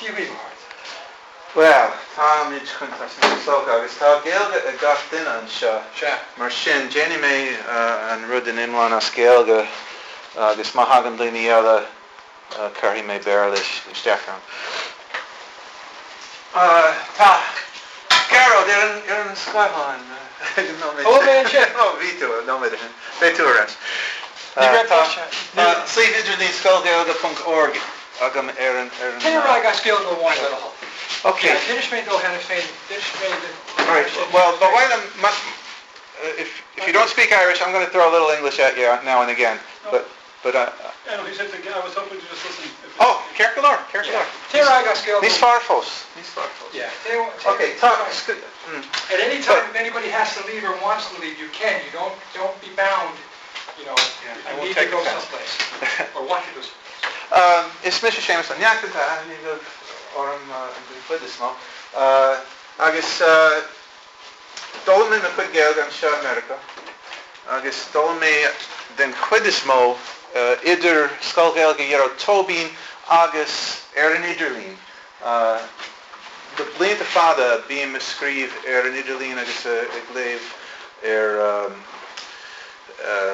Dia dhaoibh, a chairde. Bhuel, táimid chun tosnú is dócha, agus tá Gaeilge ag gach duine anseo. Sea. Mar sin, déanfaidh mé an rud in iomlán as Gaeilge agus má thagann daoine eile cuirfidh mé Béarla isteach ann. Tá Gearóid ar an ar an scáileán ag an nóiméad sin. Ó, mé ansin! Ó, bhí tú, nóiméad ó shin. Beidh tú ar ais. Ní raibh deis. Tá suíomh idirlín scoilghaeilge.org agam ar an ar an. Téir ar aghaidh as Gaeilge amháin le do thoil. Ok. Yeah, d'inis mé dó cheana féin, d'inis mé do. Alright, well, ba mhaith liom, if if you don't speak Irish, I'm going to throw a little English at you now and again, but but I. Yeah, no, he said to, I was hoping to just listen. Oh, ceart go leor, ceart go leor. Téir ar aghaidh as Gaeilge. Níos fearr fós, níos fearr fós. Yeah. Ok, tá. At any time, if anybody has to leave or wants to leave, you can. You don't don't be bound, you know, Yeah, if I you won't need to take go offense. someplace or want to go someplace. Is mise Séamus Ó Neachtain, tá aithne agaibh orm den chuid is mó, agus d'fhoghlaim mé mo chuid Gaeilge anseo i Meiriceá agus d'fhoghlaim mé den chuid is mó idir Scoil Ghaeilge Ghearóid Tóibín agus ar an idirlíon. Le blianta fada bím ag scríobh ar an idirlíon agus ag léamh ar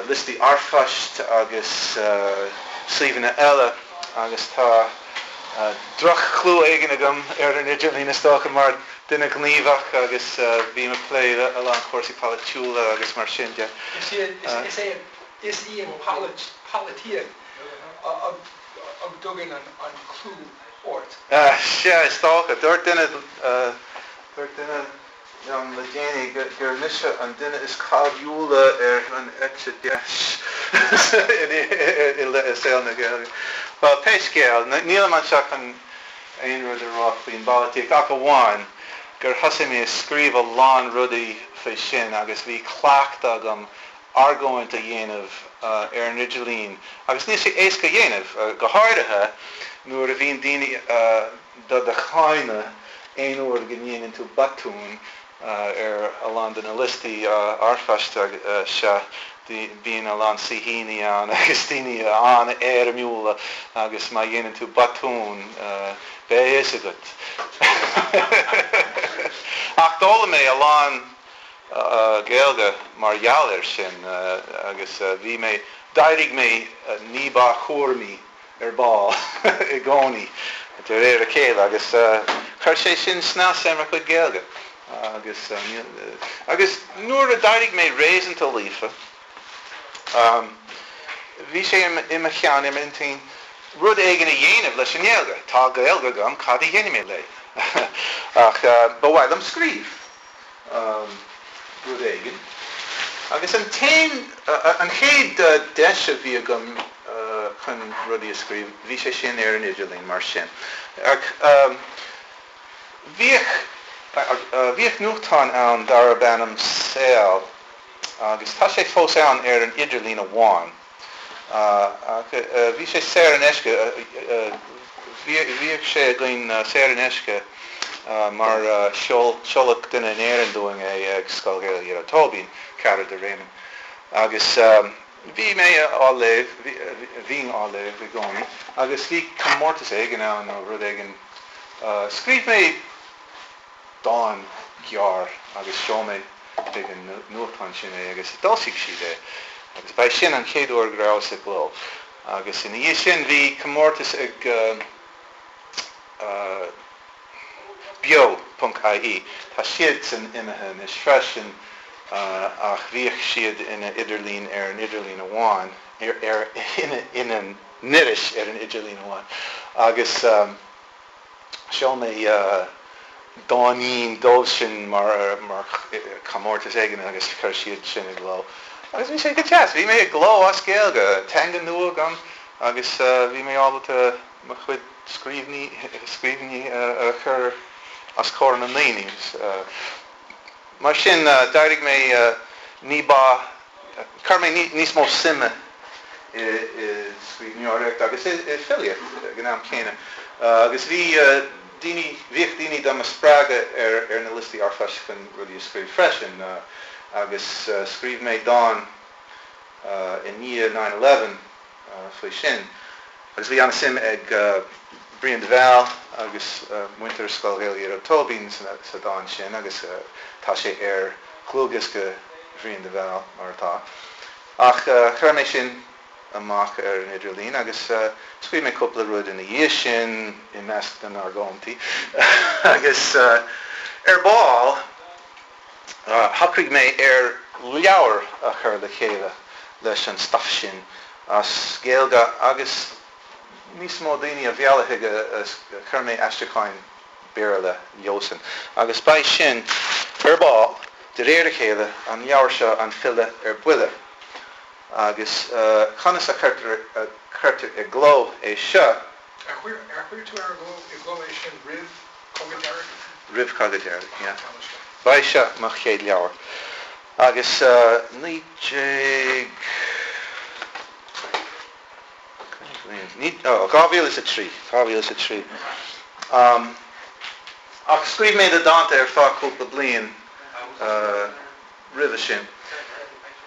liostaí r-phoist agus suíomhanna eile agus tá droch-chlú éigin agam ar an idirlíon is dócha mar duine gníomhach agus bím ag plé le a lán cúrsaí polaitiúla agus mar sin de. Is é is í an pholaitíocht a dtugann an clú ort. Sea, is dócha. Dúirt duine, dúirt duine liom le déanaí gur mise an duine is cáiliúla ar an eite dheis i saol na Gaeilge. Bhuel, pé scéal, nílim anseo chun aon rud a rá faoin bpolaitíocht ach amháin gur thosaigh mé ag scríobh a lán rudaí faoi sin agus bhí cleachtadh agam argóint a dhéanamh ar an idirlíon agus níl sé éasca a dhéanamh, go háirithe nuair a bhíonn daoine do do cháineadh aon uair go ndéanann tú botún ar a lán de na liostaí r-phoist seo. Bíonn a lán saoithíní ann agus daoine an-éirimiúla agus má dhéanann tú botún beidh a fhios agat. Ach d'fhoghlaim mé a lán Gaeilge mar gheall air sin agus bhí mé, d'éirigh mé ní ba chúramaí ar ball i gcónaí de réir a chéile agus chuir sé sin snas ar mo chuid Gaeilge agus agus nuair a d'éirigh mé réasúnta líofa bhí sé i mo cheann, i m'intinn rud éigin a dhéanamh leis an nGaeilge. Tá Gaeilge agam, cad a dhéanfaidh mé léi? Ach ba mhaith liom scríobh. rud éigin. Agus an t-aon, an chéad deis a bhí agam chun rudaí a scríobh, bhí sé sin ar an idirlíon, mar sin. Ach bhíodh, bhíodh nuachtán ann darb ainm Saol agus tá sé fós ann ar an idirlíon amháin. Ach bhí sé saor in aisce, bhíodh sé againn saor in aisce mar sheoladh duine in Éirinn dúinn é ag Scoil Ghaeilge Ghearóid Tóibín, cara de Réamonn. Agus bhí mé á léamh, bhínn á léamh i gcónaí agus bhí comórtas éigin ann nó rud éigin. Scríobh mé dán gearr agus sheol mé chuig an nuachtán sin é agus d'fhoilsigh siad é agus ba é sin an chéad uair go rabhas i gcló agus ina dhiaidh sin bhí comórtas ag Beo ponc ie, tá siadsan imithe anois freisin ach bhíodh siad ina idirlíon ar an idirlíon amháin, ar ina n-iris ar an idirlíon amháin agus. Sheol mé dáinín dóibh sin mar chomórtas éigin agus chuir siad sin i gcló. Agus bhí sé go deas. Bhí mé i gcló as Gaeilge, teanga nua agam agus bhí mé ábalta mo chuid scríbhinní a chur os comhair na ndaoine. Mar sin, d'éirigh mé ní ba, chuir mé níos mó suime i scríbhneoireacht agus i filíocht ag an am céanna. Agus bhí daoine, bhíodh daoine do mo spreagadh ar na liostaí r-phoist chun rudaí a scríobh freisin. Agus scríobh mé dán i ndiaidh 9/11 faoi sin. Agus bhí an-suim ag Brian de Bhál. agus muintir Scoil Ghaeilge Ghearóid Tóibín sa dán sin agus tá sé ar dhlúthdhiosca Bhriain de Bhál, mar atá. Ach chuir mé sin amach ar an idirlíon agus scríobh mé cúpla rud ina dhiaidh sin i measc na n-argóintí agus ar ball shocraigh mé ar leabhar a chur le chéile leis an stuif sin as Gaeilge agus níos mó daoine a mhealladh chuige chuir mé aistriúcháin Béarla leosan agus beidh sin ar ball de réir a chéile an leabhar seo An File ar Buile. Agus conas a chuirtear i gcló é seo? Ar chuir tú ar i gcló é sin roimh Cogadh Dearg? Roimh Cogadh Dearg, yeah. Ba é seo mo chéad leabhar. Agus 19, oh, 2003, 2003. Ach scríobh mé na dánta ar feadh cúpla bliain. roimhe sin.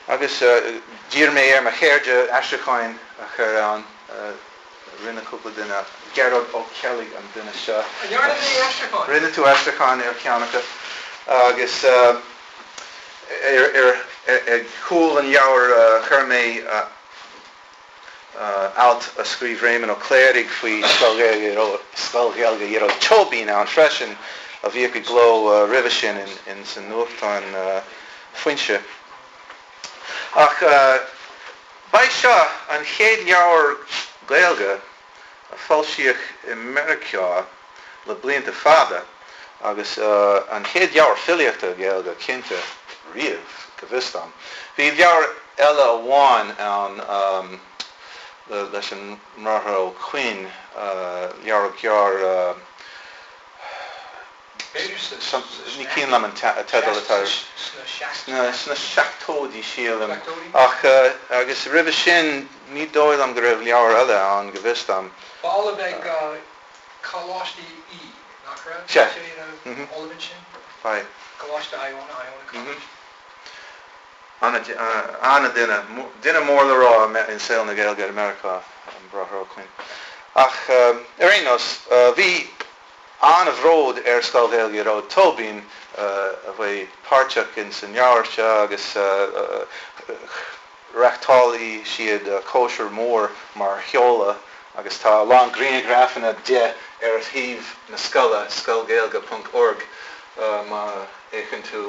Agus d'iarr mé ar mo chairde aistriúcháin a chur ann. Rinne cúpla duine. Gearóid Ó Ceallaigh an duine seo. An ndearna mé aistriúchán? Rinne tú aistriúchán ar cheann acu. Agus ar chúl an leabhair chuir mé alt a scríobh Réamonn Ó Cléirigh faoi Scoil Ghaeilge Ghearóid Tóibín ann freisin, a bhíodh i gcló roimhe sin ins an nuachtán Foinse. Ach ba é seo an chéad leabhar Gaeilge a foilsíodh i Meiriceá le blianta fada agus an chéad leabhar filíochta Gaeilge cinnte riamh, go bhfios dom. Bhí leabhar eile amháin ann leis an mBráthair Ó Coinn, leabhar gearr, Ní cuimhin liom an teideal atá air. Sna seachtóidí, sílim. Ach, agus roimhe sin, ní dóigh liom go raibh leabhar eile ann, go bhfios dom. Ba ollamh ag Coláiste Í, nach raibh? Sea. Sé ina ollamh ansin? Ba é. Coláiste Iona, Iona College. Ana-dhuine, duine mór le rá i saol na Gaeilge i Meiriceá, an Bráthair Ó Coinn. Ach ar aon nós, bhí an-bhród ar Scoil Ghaeilge Ghearóid Tóibín a bheith páirteach ins an leabhar seo agus reachtáilfidh siad cóisir mhór mar sheoladh agus tá a lán grianghrafanna de ar shuíomh na scoile, scoilghaeilge ponc org, má fhéachann tú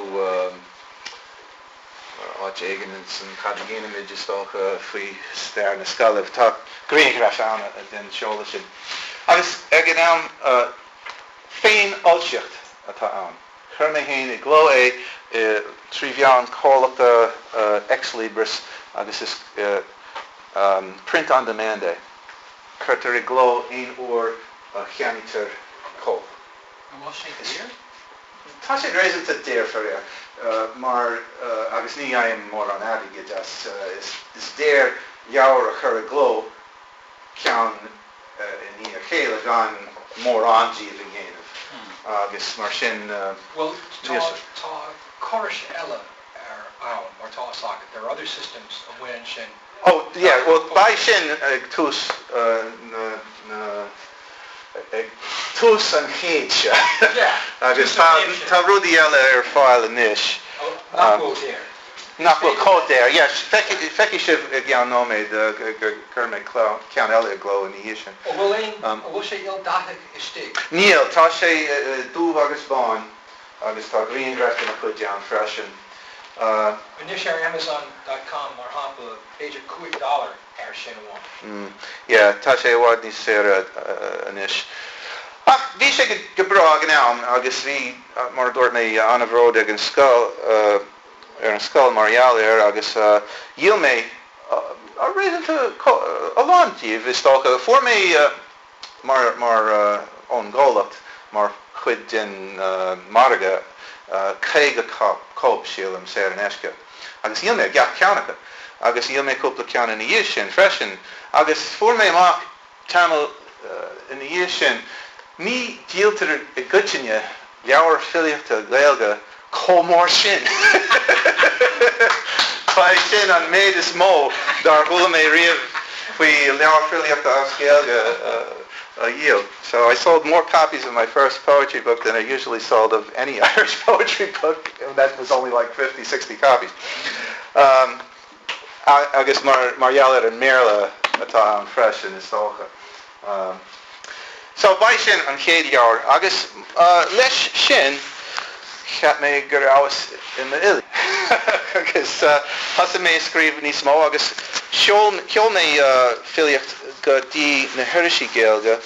áit éigin ins an Cad a Dhéanaimid, is dócha, faoi stair na scoile. Tá grianghraf ann den seoladh sin. Agus ag an am, féinfhoilsíocht atá ann. Chuir mé féin i gcló é trí mheán comhlachta Ex Libris agus is print on demand é. Cuirtear i gcló aon uair a cheannaítear cóip. An bhfuil sé daor? Tá sé réasúnta daor, faraor, mar, agus ní fhaighim mórán airgid as, is daor leabhar a chur i gcló ceann i ndiaidh a chéile gan mórán díobh a dhéanamh agus mar sin. Bhuel, tá, tá córais eile ar ann, mar tá fhios agat, there are other systems amuigh ansin. Oh, yeah, bhuel, beidh sin ag tús na, na, ag tús an chéid seo. Yeah, Agus tá, tá rudaí eile ar fáil anois. Nach bhfuil daor. Nach bhfuil chomh daor, yeah. Feicfidh, feicfidh sibh i gceann nóiméad gur chuir mé ceann eile i gcló ina dhiaidh sin. An bhfuil aon, an bhfuil sé ildathach istigh? Níl, tá sé dubh agus bán. Agus tá grianghraif de mo chuid ann freisin. Anois ar Amazon dot com, mar shampla, b'fhéidir 5 dollar air sin amháin. Yeah, tá sé i bhfad níos saoire anois. Ach bhí sé go breá ag an am agus bhí, mar a dúirt mé, an-bhród ag an scoil, ar an scoil mar gheall air agus dhíol mé réasúnta a lán díobh, is dócha. Fuair mé. mar mar ón gcomhlacht mar chuid den margadh 50 cóip, sílim, saor in aisce agus dhíol mé gach ceann acu agus dhíol mé cúpla ceann ina dhiaidh sin freisin agus fuair mé amach tamall ina dhiaidh sin ní dhíoltar i gcoitinne leabhair filíochta Gaeilge chomh mór sin. Ba é sin an méid is mó dár chuala mé riamh faoi leabhar filíochta as Gaeilge. a dhíol. So I sold more copies of my first poetry book than I usually sold of any Irish poetry book, and that was only like 50, 60 copies. Um, agus mar, mar gheall ar an mBéarla atá ann freisin, is dócha. Um, so ba é sin an chéad leabhar agus uh, leis sin cheap mé go rabhas i m'fhile. Agus uh, thosaigh mé ag scríobh níos mó agus sheol, sheol mé uh, filíocht go dtí na hirisí Gaeilge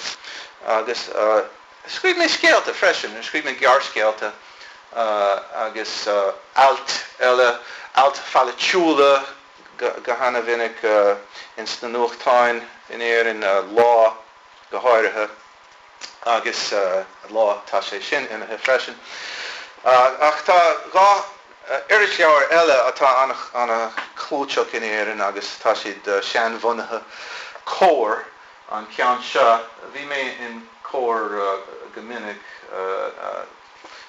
agus uh, scríobh mé scéalta freisin, scríobh mé gearrscéalta uh, agus uh, ailt eile, ailt pholaitiúla go, go hana-mhinic uh, ins na nuachtáin in Éirinn, uh, Lá go háirithe agus uh, Lá tá sé sin imithe freisin. Uh, ach tá dhá irisleabhar eile atá an-chlúiteach in Éirinn agus tá siad seanbhunaithe. Comhar an ceann seo. Bhí mé in Comhar go minic.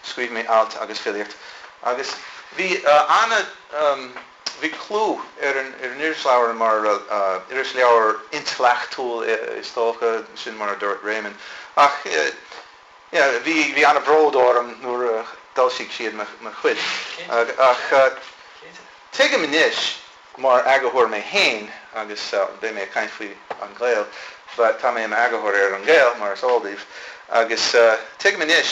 Scríobh mé ailt agus filíocht agus bhí ana bhí clú ar an irisleabhar mar irisleabhar intleachtúil is dócha, sin mar a dúirt Réamonn. Ach yeah, bhí bhí an-bhród orm nuair a d'fhoilsigh siad mo chuid. Ach tuigim anois mar eagarthóir mé féin, agus beidh mé ag caint faoi An Gael, but tá mé i m'eagarthóir ar An Gael, mar is eol daoibh, agus tuigim anois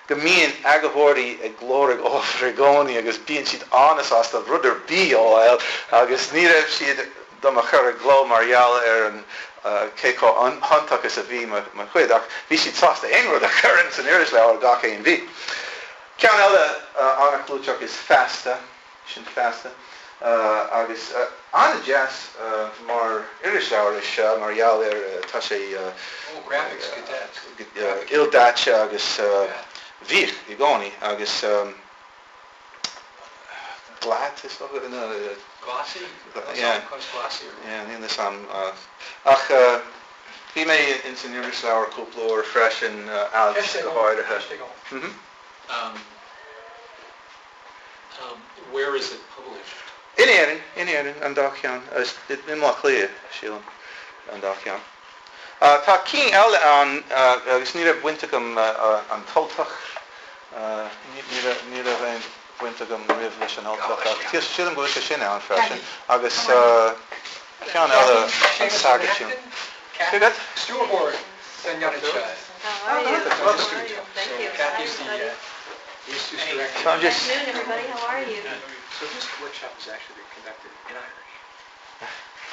go mbíonn eagarthóirí ag lorg ábhar i gcónaí agus bíonn siad an-sásta rud ar bith a fháil agus ní raibh siad do mo chur i gcló mar gheall ar an cé chomh hiontach is a bhí mo chuid, ach bhí siad sásta aon rud a chur ins an irisleabhar gach aon mhí. Ceann eile an-chlúiteach is Feasta, sin Feasta, agus an-deas mar irisleabhar é seo mar gheall ar tá sé ildaite agus bhíodh i gcónaí agus. Glat is dócha nó. Glossy? Yeah. Glossy. Yeah, níl fhios a'm ach bhí mé ins an irisleabhar cúpla uair freisin, ailt go háirithe. Ceist agam. Where is it published? In Éirinn, in Éirinn, an dá cheann. I mBaile Átha Cliath, sílim, an dá cheann. Tá cinn eile ann agus ní raibh baint agam An tUltach, ní raibh aon bhaint agam riamh leis An Ultach ach sílim go bhfuil sé sin ann freisin agus ceann eile An Sagart. Cé Stiúrthóir den ionad seo. How are you? Thank you. Kathy's the So I'm just Good afternoon, everybody. How are you? So this workshop is actually being conducted in Irish.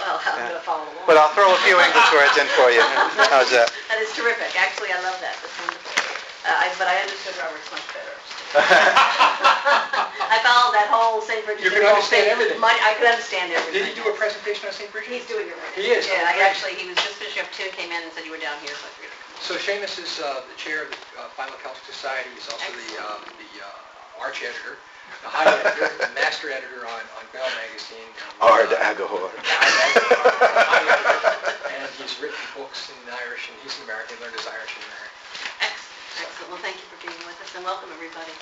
Well, I'm going to follow along. But I'll throw a few English words in for you. How's that? That is terrific. Actually, I love that. That's wonderful. Uh, I, but I understood Roberts much better. I followed that whole St. Bridget's. You could understand everything. My, I could understand everything. Did he do a presentation on St. Bridget? He's doing it right now. He is? Yeah, Oh, I great. actually, he was just finishing up too, came in and said you were down here, so I figured I'd come So Seamus is uh, the chair of the uh, Philo-Celtic Society. He's also the, uh, the uh, arch editor, the high editor, the master editor on, on Bell Magazine. And, Ard uh, Agahor. high editor. And he's written books in Irish, and he's an American, learned his Irish in America. Excellent. Excellent. Well, thank you for being with us, and welcome, everybody.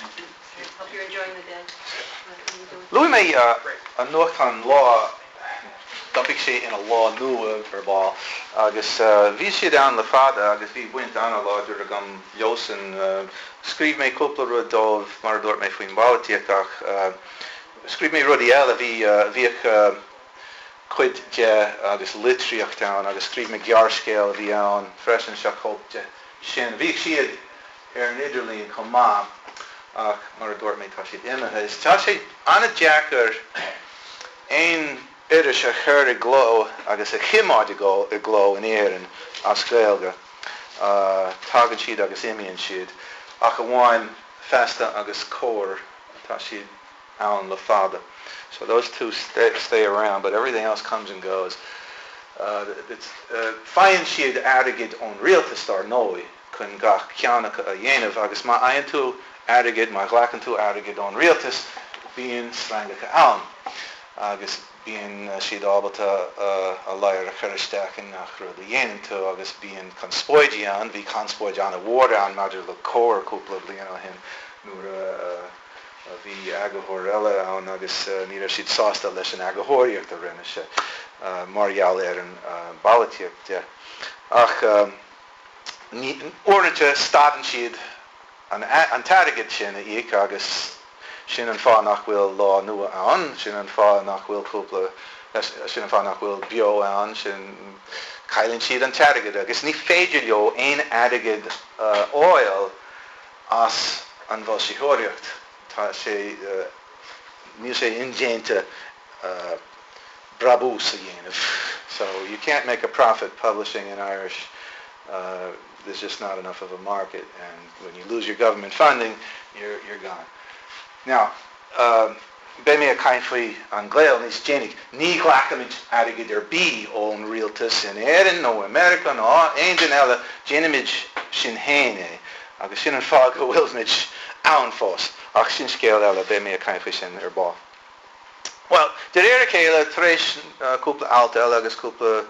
Hope you're enjoying the day. Luaigh mé an nuachtán Lá, d'iompaigh sé ina Lá Nua ar ball, agus bhí siad ann le fada agus bhí baint an-láidir agam leosan. Scríobh mé cúpla rud dóibh, mar a dúirt mé faoin bpolaitíocht, ach scríobh mé rudaí eile. Bhí, bhíodh cuid de agus litríocht ann agus scríobh mé gearrscéal a bhí ann freisin, seo cóip de sin. Bhíodh siad ar an idirlíon chomh maith ach mar a dúirt mé tá siad imithe. Is tá sé an-deacair aon iris a chur i gcló agus a choimeád i gcló in Éirinn as Gaeilge. Tagann siad agus imíonn siad. Ach amháin Feasta agus Comhar, tá siad ann le fada. So those two stay, stay around but everything else comes and goes. Faigheann siad airgead ón rialtas dar ndóigh chun gach ceann acu a dhéanamh agus má fhaigheann tú airgead, má ghlacann tú airgead ón rialtas, bíonn sreangacha ann agus bíonn siad ábalta a ladhar a chur isteach i ngach rud a dhéanann tú agus bíonn conspóidí ann. Bhí conspóid an-mhór ann maidir le Comhar cúpla bliain ó shin nuair a bhí eagarthóir eile ann agus ní raibh siad sásta leis an eagarthóireacht a rinne sé mar gheall ar an bpolaitíocht de. Ach. Uaireanta stadann siad an t-airgead sin a íoc agus sin an fáth nach bhfuil Lá Nua ann, sin an fáth nach bhfuil cúpla, sin an fáth nach bhfuil Beo ann, sin, cailleann siad an t-airgead agus ní féidir leo aon airgead a fháil as an bhfoilsitheoireacht. Tá sé, níl sé indéanta brabús a dhéanamh. So you can't make a profit publishing in Irish. There's just not enough of a market and when you lose your government funding, you're, you're gone. Now, beidh mé ag caint faoi An Gael níos déanaí. Ní ghlacaimid airgead ar bith ón rialtas in Éirinn nó i Meiriceá nó aon duine eile, déanaimid sinn féin é agus sin an fáth go bhfuilimid ann fós. Ach sin scéal eile, beidh mé ag caint faoi sin ar ball. Bhuel, de réir a chéile, tar éis cúpla alt eile agus cúpla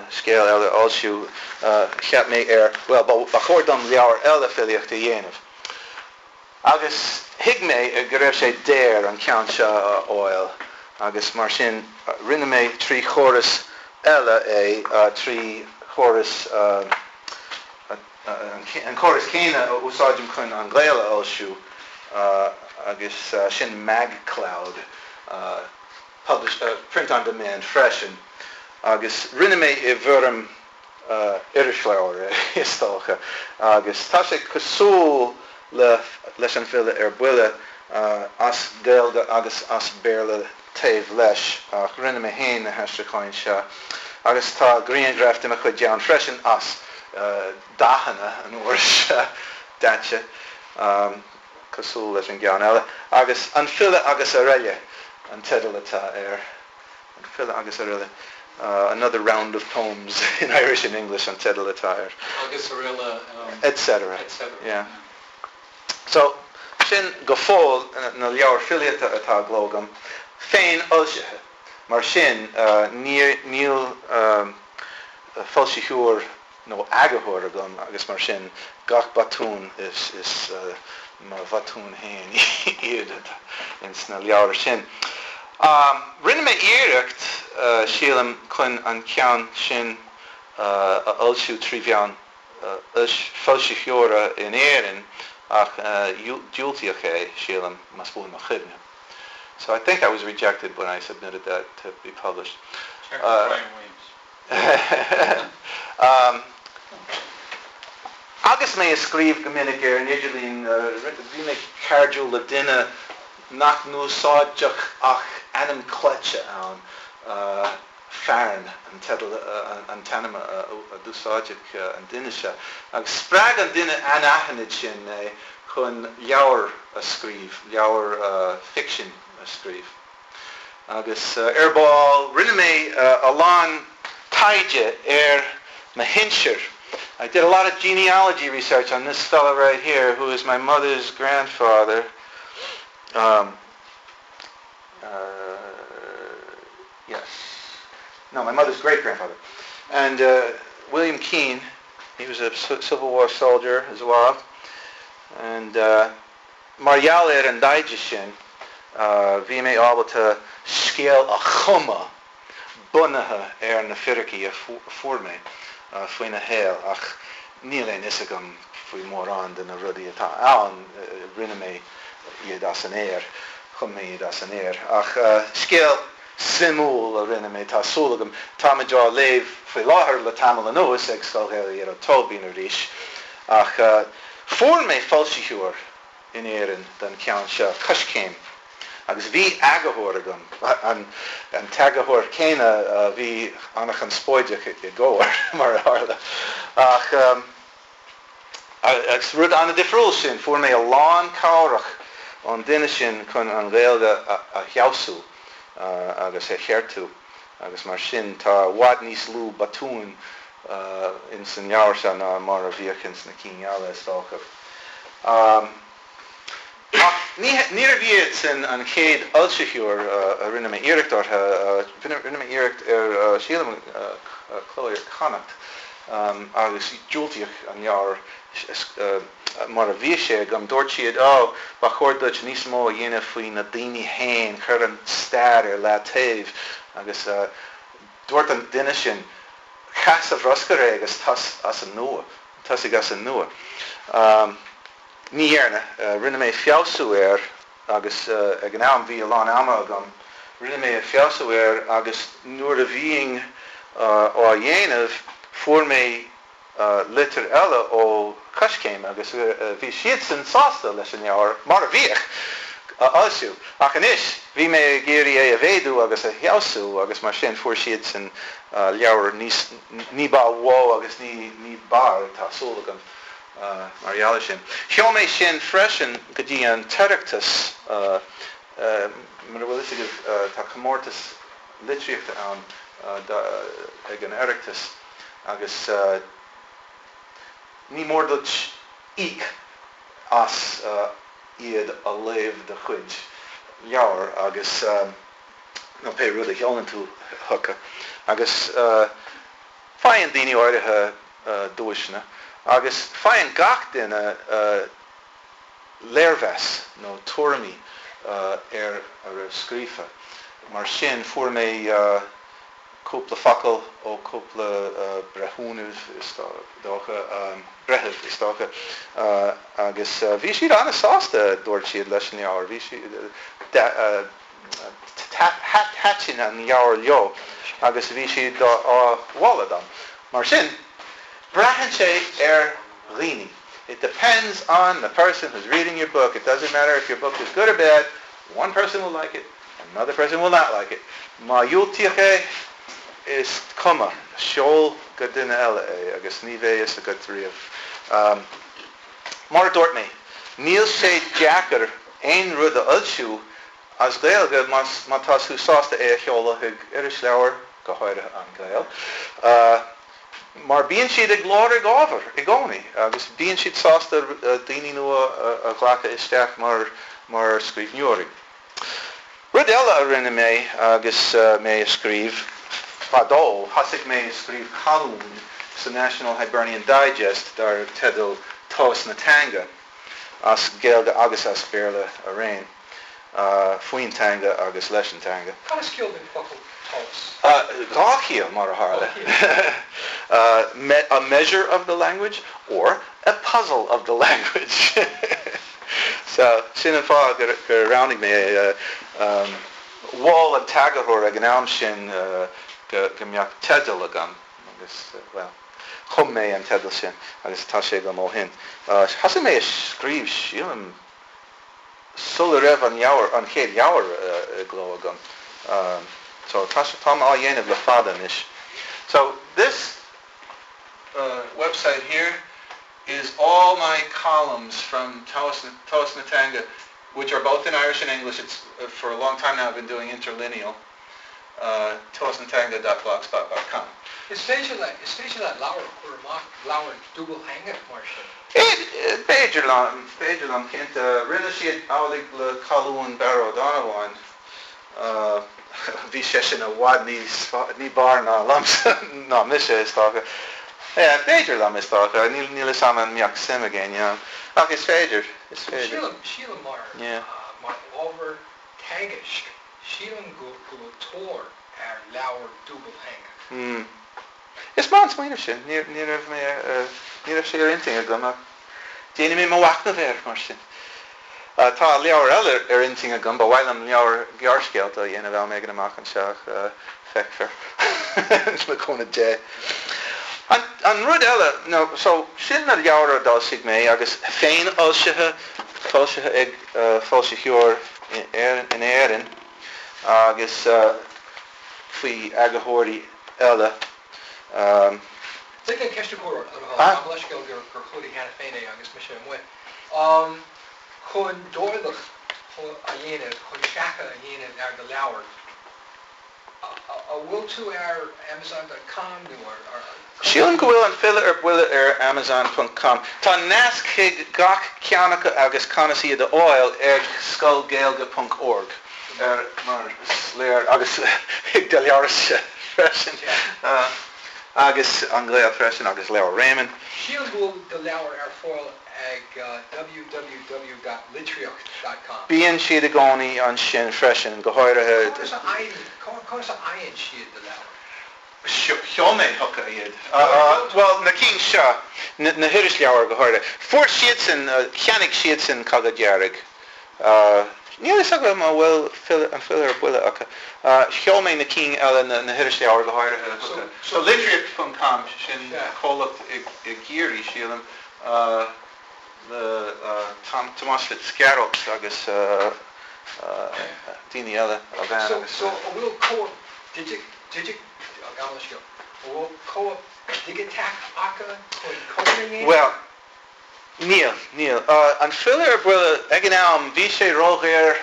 scéal eile a fhoilsiú, cheap mé ar, bhuel, ba chóir dom leabhar eile filíochta a dhéanamh. Agus thuig mé go raibh sé daor an ceann seo a fháil agus mar sin rinne mé trí chóras eile é, trí chóras, an córas céanna a úsáidim chun An Gael a fhoilsiú agus sin MagCloud, publish, print on demand freisin agus rinne mé i bhfoirm irisleabhair é is dócha agus tá sé cosúil le leis An File ar Buile as Gaeilge agus as Béarla taobh leis ach rinne mé féin na haistriúcháin seo agus tá grianghraif de mo chuid ann freisin as dathanna an uair seo, daite, cosúil leis an gceann eile. Agus An File agus Araile an teideal atá air. An File agus Araile, Another Round of Poems in Irish and English an teideal atá air. Agus araile. Etc. Etc. Yeah. So, sin go fóill na leabhair filíochta atá i gcló agam, féin-fhoilsithe. Mar sin, níl foilsitheoir nó eagarthóir agam agus mar sin, gach botún is mo bhotúin féin iad ins na leabhair sin. Rinne mé iarracht, sílim, chun an ceann sin a fhoilsiú trí mheán foilsitheora in Éirinn ach diúltaíodh é, sílim, más buan mo chuimhne. So I think I was rejected when I submitted that to be published. Check with Brian Williams. Agus mé ag scríobh go minic ar an idirlíon, bhí mé cairdiúil le duine nach n-úsáideadh ach ainm cleite ann. Fearn an teideal, an t-ainm a d'úsáideadh an duine seo. Agus spreag an duine anaithnid sin mé chun leabhar a scríobh, leabhar ficsin a scríobh. Agus ar ball, rinne mé a lán taighde ar mo shinsir. I did a lot of genealogy research on this fellow right here, who is my mother's grandfather. Um, uh, yes. No, my mother's great-grandfather. And uh, William Keane, he was a Civil War soldier as well. And uh, mar gheall ar an dtaighde sin, uh, bhí mé ábalta scéal a chumadh bunaithe ar na fíricí a fuair mé uh, faoina shaol ach níl aon fhios agam faoi mórán de na rudaí atá ann, rinne mé iad as an aer, chum mé iad as an aer. Ach scéal suimiúil a rinne mé, tá súil agam. Táimid á léamh faoi láthair le tamall anuas ag Scoil Ghaelach Ghearóid Tóibín arís. Ach fuair mé foilsitheoir in Éirinn don cheann seo, Coiscéim, agus bhí eagarthóir agam, an t-eagarthóir céanna a bhí an-chonspóideach i gComhar, mar a tharla. Ach agus rud an-difriúil sin, fuair mé a lán cabhrach ón duine sin chun an Ghaeilge a fheabhsú agus a cheartú agus mar sin tá i bhfad níos lú botúin ins an leabhar seo ná mar a bhíodh ins na cinn eile, is dócha. Ach níorbh iad sin an chéad fhoilsitheoir a rinne mé iarracht orthu. Rinne mé iarracht ar, sílim, Cló Iar-Chonnacht agus diúltaíodh an leabhar mar a bhí sé agam. Dúirt siad, Ó, ba chóir duit níos mó a dhéanamh faoi na daoine féin, cuir an stair ar leataobh. Agus dúirt an duine sin, Caith sa bhruscar é agus tosaigh as an nua. Tosaigh as an nua. Ní dhearna. Rinne mé feabhsú air agus ag an am bhí a lán ama agam. Rinne mé feabhsú air agus nuair a bhínn á dhéanamh fuair mé litir eile ó Coiscéim agus bhí siadsan sásta leis an leabhar mar a bhíodh a fhoilsiú. Ach anois bhí mé ag iarraidh é a mhéadú agus a fheabhsú agus mar sin fuair siadsan leabhar níos, ní ba mhó agus ní ní b'fhearr, tá súil agam, mar gheall air sin. Sheol mé sin freisin go dtí an tOireachtas, mura bhfuil fhios agaibh tá comórtas litríochta ann ag an Oireachtas agus ní mór duit íoc as iad a léamh do chuid leabhar agus nó pé rud a sheolann tú chucu agus faigheann daoine áirithe duaiseanna agus faigheann gach duine léirmheas nó tuairimí ar a raibh scríofa. Mar sin, fuair mé cúpla focal ó cúpla breithiúnamh, is dócha, breitheamh, is dócha, agus bhí siad an-sásta, dúirt siad, leis an leabhar. Bhí siad, thaitin an leabhar leo agus bhí siad á mholadh dom. Mar sin, braitheann sé ar dhaoine. It depends on the person who's reading your book. It doesn't matter if your book is good or bad, one person will like it, another person will not like it. Má dhiúltaíodh é, is cuma, seol go duine eile é agus ní bheidh fhios agat riamh. Mar a dúirt mé, níl sé deacair aon rud a fhoilsiú as Gaeilge má tá tú sásta é a sheoladh chuig irisleabhar, go háirithe An Gael, mar bíonn siad ag lorg ábhar i gcónaí agus bíonn siad sásta daoine nua a ghlacadh isteach mar scríbhneoirí. Rud eile a rinne mé agus mé ag scríobh, fadó, thosaigh mé ag scríobh colún sa National Hibernian Digest dar teideal Tomhas na Teanga, as Gaeilge agus as Béarla araon, faoin teanga agus leis an teanga. Cad is ciall don focal tomhas? Dhá chiall, mar a tharla. A measure of the language or a puzzle of the language. So, sin an fáth gur roghnaigh mé é. Mhol an t-eagarthóir ag an am sin go mbeadh teideal agam agus, bhuel, chum mé an teideal sin agus tá sé agam ó shin. Thosaigh mé ag scríobh, sílim, sula raibh an leabhar, an chéad leabhar i gcló agam. So, tá, táim á dhéanamh le fada anois. So, this website here is all my columns from Tomhas na Teanga, which are both in Irish and English. It's for a long time now I've been doing interlineal. Tomhasnateanga.blogspot.com. Is féidir le, is féidir leat leabhar a chur amach, leabhar dúbaltheangach mar sin? B'fhéidir liom, b'fhéidir liom, cinnte. Rinne siad amhlaidh le colún Barra Ó Donnabháin. Bhí seisean i bhfad níos, ní b'fhearr ná liomsa, ná mise, is dócha. Yeah, b'fhéidir liom, is dócha. Níl, níl 'fhios a'm an mbeadh suim ag éinne ann. Ach is féidir, is féidir. Sílim, sílim mar, Yeah. mar ábhar teagaisc, sílim go, go bhfuil tóir ar leabhar dúbaltheangach. Hmm. Is maith an smaoineamh sin. Ní, ní raibh mé, ní raibh sé ar intinn agam ach déanfaidh mé mo mhachnamh air, mar sin. Tá leabhar eile ar intinn agam, ba mhaith liom leabhar gearrscéalta a dhéanamh am éigin amach anseo ach feicfear le cúnamh Dé. An rud eile, nó so, sin na leabhair a d'fhoilsigh mé agus féinfhoilsithe, foilsithe ag foilsitheoir in Éirinn agus faoi eagarthóirí eile. Lig mé ceist a chur ort, le do thoil. Gabh mo leithscéal gur chuala cheana féin é agus mise amuigh. Chun dáileadh a dhéanamh, chun seachadh a dhéanamh ar do leabhar, an bhfuil tú ar Amazon dot com nó ar, ar. Sílim go bhfuil An File ar Buile ar Amazon ponc com. Tá nasc chuig gach ceann acu agus conas iad a fháil ag scoilgaeilge ponc org, ar mar is léir, agus chuig do leabharsa freisin. Agus An Gael freisin, agus leabhar Réamonn. Sílim go bhfuil do leabhar ar fáil ag www dot litríocht dot com. Bíonn siad i gcónaí ansin freisin, go háirithe. Conas a fhaigheann, conas a fhaigheann siad do leabhar? Sheol mé chucu iad. Bhuel, na cinn seo, na hirisleabhair go háirithe. Fuair siadsan, cheannaigh siadsan Cogadh Dearg. Níl a fhios agam an bhfuil An File ar Buile acu. Sheol mé na cinn eile, na hirisleabhair go háirithe, chucu. So Litríocht ponc com, sin comhlacht i gCiarraí, sílim, le Tomás Fitzgerald agus daoine eile, a bhean agus. So an bhfuil cóip digiteach, gabh mo leithscéal, an bhfuil cóip dhigiteach acu chun cóipeanna a dhéanamh? Bhuel, Níl, níl. An File ar Buile, ag an am, bhí sé ródhaor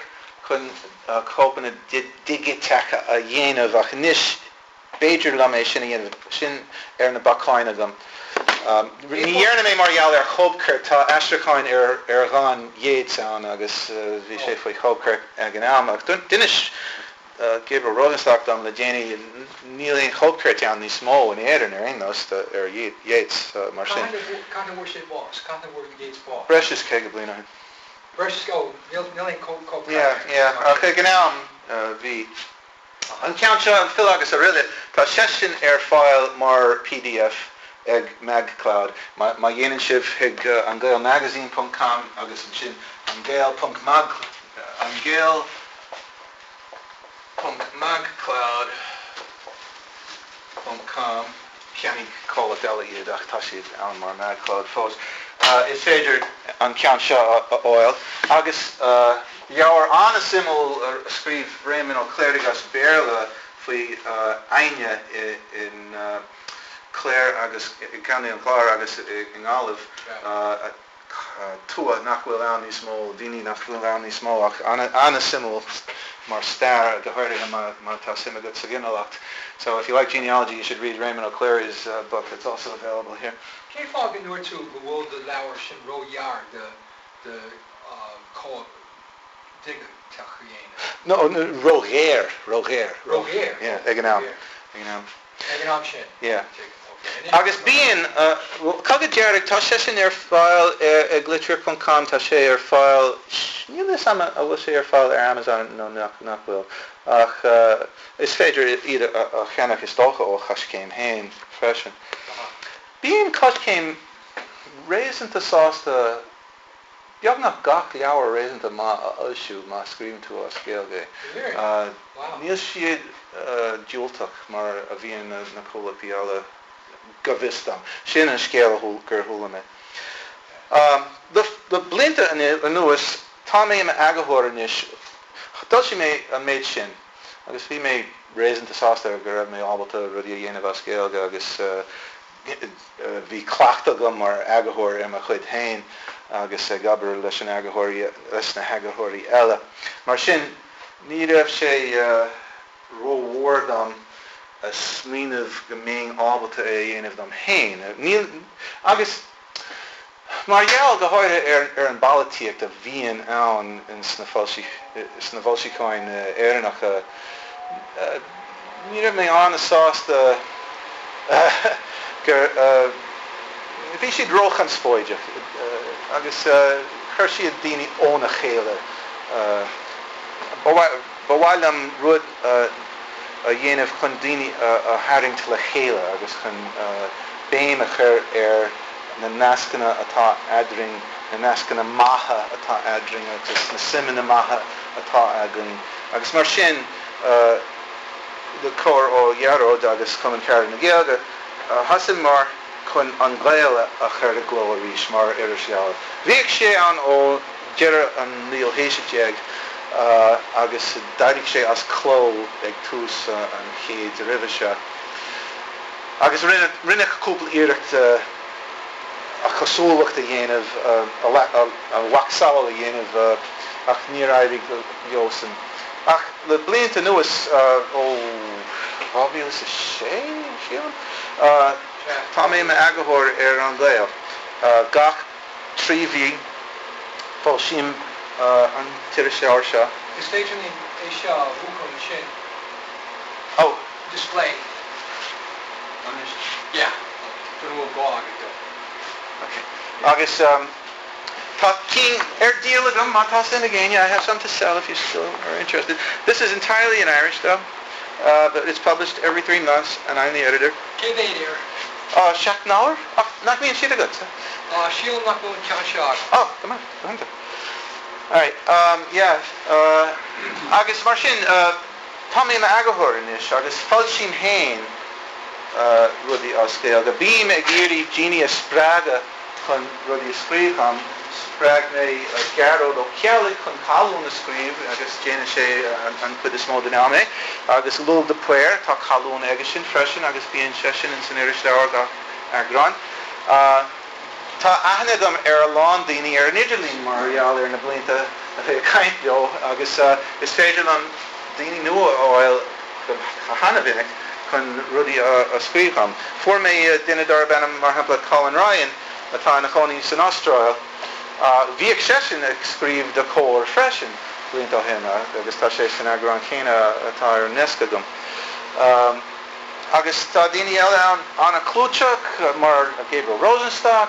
chun cóipeanna digiteacha a dhéanamh ach anois b'fhéidir liom é sin a dhéanamh, sin ar na bacáin agam. Ní dhearna mé mar gheall ar chóipchirt, tá aistriúcháin ar dhán Yeats ann agus bhí sé faoi chóipchirt ag an am ach d'inis Gabriel Rosenstock dom le déanaí, níl aon chóipchirt ann níos mó in Éirinn ar aon nós ar Yeats, mar sin. Cathain a fuair sé bás? Cathain a fuair Yeats bás? Breis is 50 bliain ó shin. Breis is, oh, níl aon chóipchirt ann. Yeah, yeah, ach ag an am bhí. An ceann seo, An File agus Aroile, tá seisean ar fáil mar pdf ag MagCloud. Má dhéanann sibh chuig angaelmagazine ponc com agus ansin angael ponc mag, angael. ponc magcloud ponc com, cheannaigh comhlacht eile iad ach tá siad ann mar magcloud fós, is féidir an ceann seo a fháil. Agus leabhar an-suimiúil a scríobh Réamonn Ó Cléirigh as Béarla faoi Aidhne in Clare agus i gContae an Chláir agus i nGaillimh. tuath nach bhfuil ann níos mó, daoine nach bhfuil ann níos mó ach an-suimiúil mar stair, go háirithe má tá suim agat sa ghinealacht. So if you like genealogy you should read Raymond O'Clery's book, it's also available here. Cén fáth go ndúirt tú go bhfuil do leabhar sin róghearr do do chóip dhigiteach a dhéanamh? No, róghéar, róghéar. Róghéar? Yeah, ag an am. Ag an am. Ag an am sin? Yeah. Agus bíonn, Cogadh Dearg, tá sé sin ar fáil ag Litríocht ponc com, tá sé ar fáil, níl a fhios agam an bhfuil sé ar fáil ar Amazon nó nach bhfuil, ach is féidir iad a cheannach is dócha ó Choiscéim féin freisin. Bíonn Coiscéim réasúnta sásta beagnach gach leabhar réasúnta maith a fhoilsiú má scríobhann tú as Gaeilge é. Níl siad diúltach mar a bhíonn na comhlachtaí eile, go bhfios dom. Sin an scéal gur chuala mé. Le blianta anuas, tá mé i m'eagarthóir anois. D'fhoilsigh mé an méid sin agus bhí mé réasúnta sásta go raibh mé ábalta rudaí a dhéanamh as Gaeilge agus Bhí cleachtadh agam mar eagarthóir ar mo chuid féin agus ag obair leis an eagarthóirí, leis na heagarthóirí eile. Mar sin, ní raibh sé rómhór dom a smaoineamh go mbeinn ábalta é a dhéanamh dom féin. Níl, agus mar gheall go háirithe ar ar an bpolaitíocht a bhíonn ann sna sna foilseacháin Éireannacha, ní raibh mé an-sásta gur bhí siad róchonspóideach agus chuir siad daoine óna chéile. Ba mhaith liom rud a dhéanamh chun daoine a tharraingt le chéile agus chun béim a chur ar na nascanna atá eadrainn, na nascanna maithe atá eadrainn agus na suimeanna maithe atá againn agus mar sin le cabhair ó Ghearóid agus Cumann Carad na Gaeilge, thosaíomar chun An Gael a chur i gcló arís mar irisleabhar. Bhíodh sé ann ó dheireadh an naoú haois déag agus d'éirigh sé as cló ag tús an chéid roimhe seo. Agus rinneadh cúpla iarracht a chosúlacht a dhéanamh, a mhacasamhail a dhéanamh, ach níor éirigh leosan. Ach le blianta anuas, ó 2006, sílim, tá mé i m'eagarthóir ar An Gael. Gach 3 mhí, foilsím an t-irisleabhar seo. Is féidir linn é seo a mhúchadh ansin. Oh. Display. Anois. Yeah. Go bhfuil gá agat dó. Ok. Agus tá cinn ar díol agam má tá suim ag éinne. I have some to sell if you still are interested. This is entirely in Irish though. But it's published every 3 months and I'm the editor. Cé mhéad air? 7 n-abhar? Ach nach mbíonn siad agatsa? Sílim nach bhfuil an ceann seo agam. Oh, go maith, go hiontach. Alright, yeah, agus mar sin, tá mé i m'eagarthóir anois agus foilsím féin rudaí as Gaeilge. Bím ag iarraidh daoine a spreagadh chun rudaí a scríobh dom. Spreag mé Gearóid Ó Ceallaigh chun colún a scríobh agus déanann sé an chuid is mó den am é. Agus Lugh de Paor, tá colún aigesean freisin agus bíonn seisean ins an irisleabhar gach eagrán. Tá aithne agam ar a lán daoine ar an idirlíon mar gheall ar na blianta a bheith ag caint leo agus is féidir liom daoine nua a fháil go hana-mhinic chun rudaí a scríobh dhom. Fuair mé duine darb ainm, mar shampla, Colin Ryan, atá ina chónaí san Astráil. Bhíodh seisean ag scríobh do Comhar freisin blianta ó shin agus tá sé san eagrán céanna atá ar an ndeasc agam. Agus tá daoine eile ann an-chlúiteach mar Gabriel Rosenstock,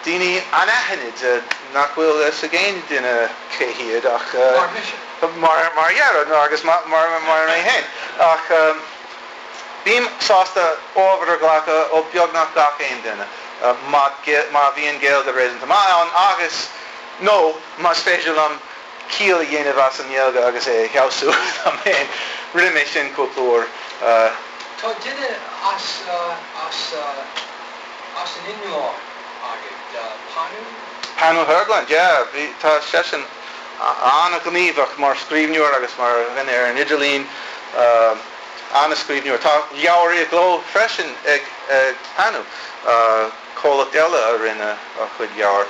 daoine anaithnid nach bhfuil fhios ag aon duine cé hiad ach. Mar mise. Mar mar Ghearóid agus mar mar mé féin. Ach bím sásta ábhar a ghlacadh ó beagnach gach aon duine má má bhíonn Gaeilge réasúnta maith ann agus, nó más féidir liom ciall a dhéanamh as an nGaeilge agus é a fheabhsú dom féin. Rinne mé sin cúpla uair. Tá duine as as as an Fhionlainn agat, Panu? Panu Höglund, yeah. Bhí, tá seisean an-ghníomhach mar scríbhneoir agus mar dhuine ar an idirlíon. An-scríbhneoir. Tá leabhar i gcló freisin ag Panu. Comhlacht eile a rinne a chuid leabhar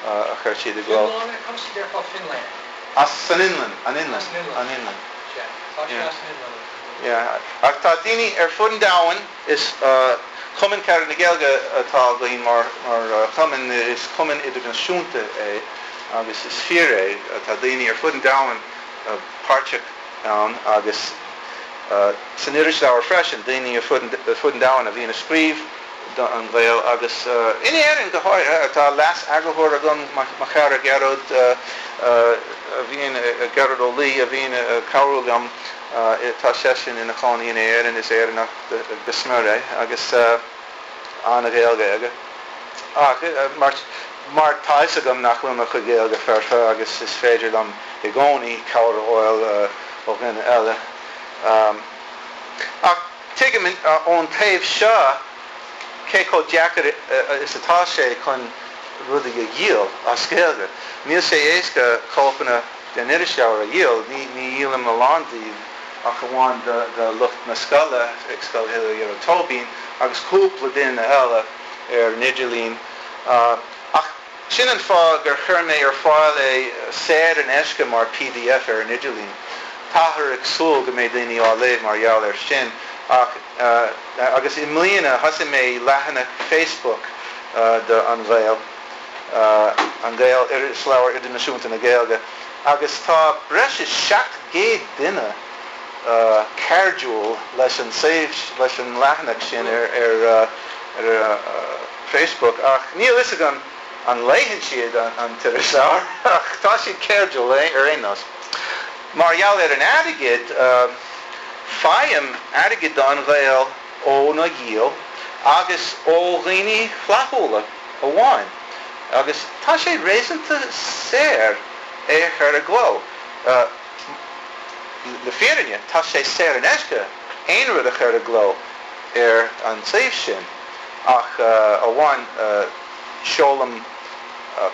a chuir siad i gcló. Fionlainne? Conas a déarfá Finland? As san Fhionlainn, an Fhionlainn. As an Fhionlainn. An Fhionlainn. Sea, tá sé as an Fhionlainn. Yeah. Ach tá daoine ar fud an domhain, is Cumann Carad na Gaeilge atá againn mar chumann, is cumann idirnáisiúnta é agus is fíor é, tá daoine ar fud an domhain páirteach ann agus san irisleabhar freisin, daoine ar fud an domhain a bhíonn ag scríobh do An Gael agus in Éirinn go háirithe. Tá leas-eagarthóir agam, mo chara Gearóid a bhíonn, Gearóid Ó Laoi a bhíonn ag cabhrú liom. Tá seisean ina chónaí in Éirinn, is Éireannach go smior é agus an-Ghaeilge aige. Ach mar mar tá fhios agam nach bhfuil mo chuid Gaeilge foirfe agus is féidir liom i gcónaí cabhair a fháil ó dhuine eile. Ach tuigim ón taobh seo cé chomh deacair is atá sé chun rudaí a dhíol as Gaeilge. Níl sé éasca cóipeanna den irisleabhar a dhíol, ní dhíolaim a lán díobh ach amháin do lucht na scoile ag Scoil Ghearóid Tóibín agus cúpla duine eile ar an idirlíon. Ach sin an fáth gur chuir mé ar fáil é saor in aisce mar pdf ar an idirlíon. Táthar ag súil go mbeidh daoine á léamh mar gheall air sin ach agus i mbliana thosaigh mé leathanach Facebook do An Gael, An Gael, Irisleabhar Idirnáisiúnta na Gaeilge, agus tá breis is 700 duine cairdiúil leis an leis an leathanach sin ar ar Facebook ach níl fhios agam an léann siad an t-irisleabhar ach tá siad cairdiúil ar aon nós. Mar gheall ar an airgead, faighim airgead do An Gael óna dhíol agus ó dhaoine flaithiúla amháin agus tá sé réasúnta saor é a chur i gcló. Le fírinne, tá sé saor in aisce aon rud a chur i gcló ar an suíomh sin ach amháin seolaim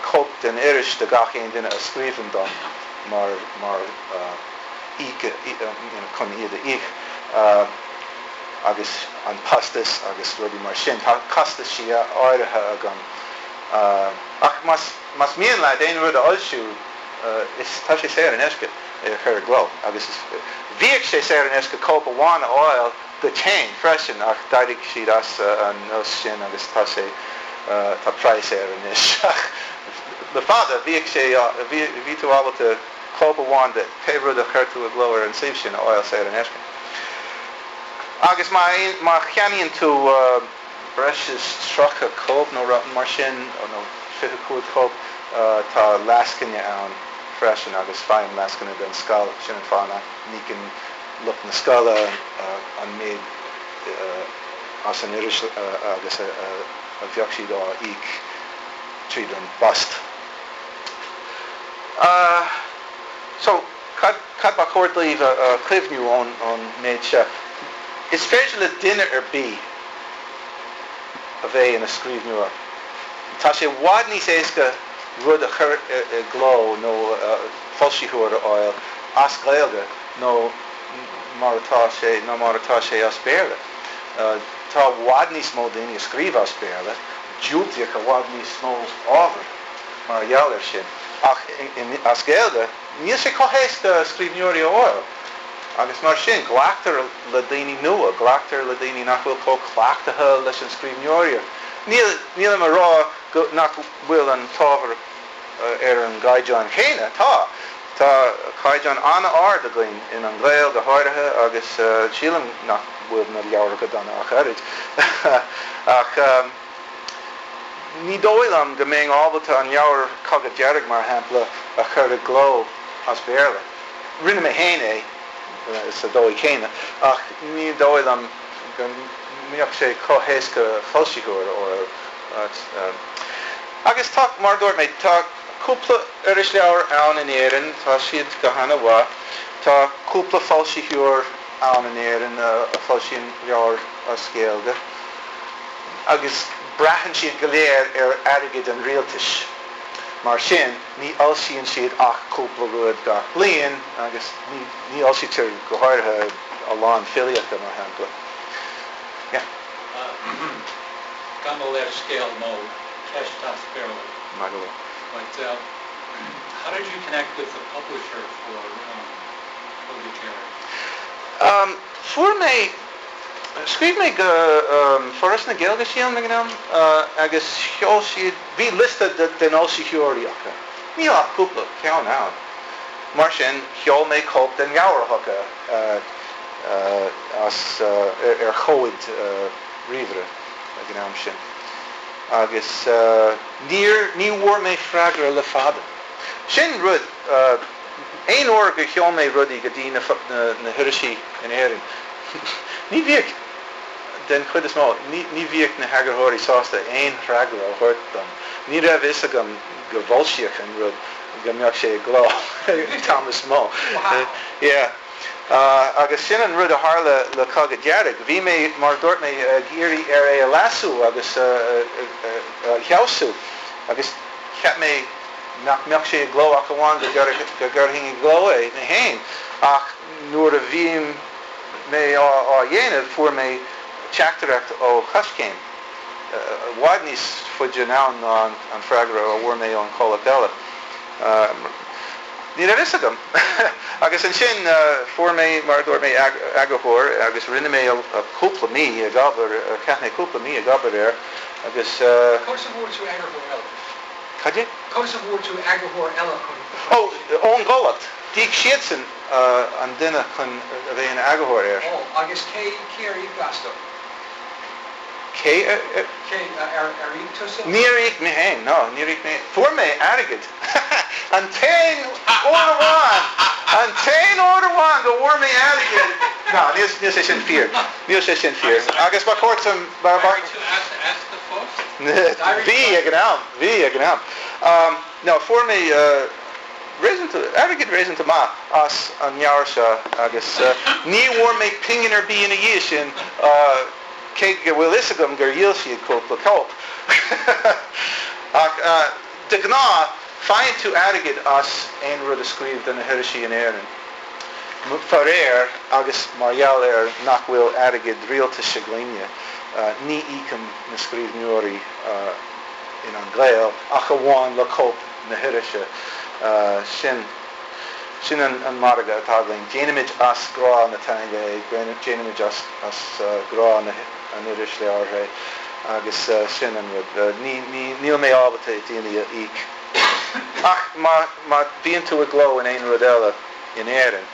cóip den iris do gach aon duine a scríobhann dom mar mar íoc chun iad a íoc agus an postas agus rudaí mar sin. Tá costaisí áirithe agam ach más más mian leat aon rud a fhoilsiú is tá sé saor in aisce é a chur i gcló agus is bhíodh sé saor in aisce cóip amháin a fháil duit féin freisin ach d'éirigh siad as an nós sin agus tá sé tá praghas air anois ach le fada bhíodh sé bhí bhí tú ábalta cóip amháin de pé rud a chuir tú i gcló ar an suíomh sin a fháil saor in aisce. Agus má má cheannaíonn tú breis is 30 cóip nó rud mar sin nó 25 cóip tá lascaine ann freisin agus faighim lascaine don scoil sin an fáth nach n-íocann. lucht na scoile an méid as an iris agus a bheadh siad á íoc tríd an bpost. So, cad cad ba chóir daoibh a chuimhniú ón méid seo? Is féidir le duine ar bith a bheith ina scríbhneoir. Tá sé i bhfad níos éasca rud a chur i gcló nó foilsitheoir a fháil as Gaeilge nó mar atá sé ná mar atá sé as Béarla. Tá i bhfad níos mó daoine a scríobh as Béarla, diúltaíodh i bhfad níos mó ábhar mar gheall air sin. Ach as Gaeilge, níl sé chomh héasca scríbhneoirí a fháil. Agus mar sin, glactar le daoine nua, glactar le daoine nach bhfuil chomh cleachtaithe leis an scríbhneoireacht. Níl, nílim a rá go, nach bhfuil an t-ábhar ar an gcaighdeán chéanna, tá. Tá caighdeán an-ard againn in An Gael go háirithe agus sílim nach bhfuil na leabhair go dona ach oiread. Ach ní dóigh liom go mbeinn ábalta an leabhar Cogadh Dearg, mar shampla, a chur i gcló as Béarla. Rinne mé féin é sa dóigh chéanna ach ní dóigh liom go mbeadh sé chomh héasca foilsitheoir a fháil. Agus tá, mar a dúirt mé, tá cúpla irisleabhar ann in Éirinn, tá siad go hana-mhaith. Tá cúpla foilsitheoir ann in Éirinn a foilsíonn leabhair as Gaeilge agus braitheann siad go léir ar airgead an rialtais. Mar sin, ní fhoilsíonn siad ach cúpla rud gach bliain agus ní fhoilsítear go háirithe a lán filíochta, mar shampla. Yeah. Gabh mo leithscéal nó ceist as Béarla. Maith go leor. But how did you connect with the publisher for Cogadh Dearg? Fuair mé, scríobh mé go Foras na Gaeilge sílim ag an am agus sheol siad, bhí liosta den fhoilsitheoirí acu. Níl ach cúpla ceann ann. Mar sin sheol mé cóip den leabhar chucu as ar chomhad ríomhaire ag an am sin. Agus níor, ní bhfuair mé freagra le fada. Sin rud, aon uair gur sheol mé rudaí go dtí na, na hirisí in Éirinn, ní bhíodh, den chuid is mó, ní, ní bhíodh na heagarthóirí sásta aon fhreagra a thabhairt dom. Ní raibh fhios agam go bhfoilsíodh an rud, go mbeadh sé i gcló an t-am is mó. Yeah. Agus sin an rud a tharla le Cogadh Dearg. Bhí mé, mar a dúirt mé, ag iarraidh ar é a leasú agus a fheabhsú agus cheap mé nach mbeadh sé i gcló ach amháin go gcuirfinn i gcló é mé féin. Ach nuair a bhí mé á dhéanamh fuair mé teachtaireacht ó Choiscéim, i bhfad níos faide anonn ná an freagra a bhfuair mé ón chomhlacht eile. Ní raibh fhios agam. Agus ansin fuair mé, mar a dúirt mé, eagarthóir agus rinne mé cúpla mí ag obair, chaith mé cúpla mí ag obair air agus. Conas a bhfuair tú eagarthóir eile? Cad é? Conas a bhfuair tú eagarthóir eile chun. Ó, ón gcomhlacht. D'íoc siadsan an duine chun a bheith ina eagarthóir air. Ó, agus cé, cé ar íoc astu? Cé ar. Cé, ar íoc tusa? Níor íoc mé féin, no, níor íoc mé. Fuair mé airgead. An t-aon uair amháin, an t-aon uair amháin go bhfuair mé airgead, no, níl, níl sé sin fíor, níl sé sin fíor. Agus ba chóir dom, ba, ba. D'éirigh tú as, as do phost? Bhí ag an am, bhí ag an am. No, fuair mé réasúnta, airgead réasúnta maith as an leabhar seo agus ní bhfuair mé pingin ar bith ina dhiaidh sin, cé go bhfuil fhios agam gur dhíol siad cúpla cóip. Ach de ghnáth, faigheann tú airgead as aon rud a scríobh do na hirisí in Éirinn. Faraor, agus mar gheall ar nach bhfuil airgead rialtais againne, ní íocaim na scríbhneoirí in An Gael ach amháin le cóip na hirise. Sin, sin an margadh atá againn. Déanaimid as grá na teanga é, déanaimid as grá na an irisleabhair é agus sin an rud. Ní, ní, níl mé ábalta daoine a íoc. Ach má, má bhíonn tú i gcló in aon rud eile in Éirinn,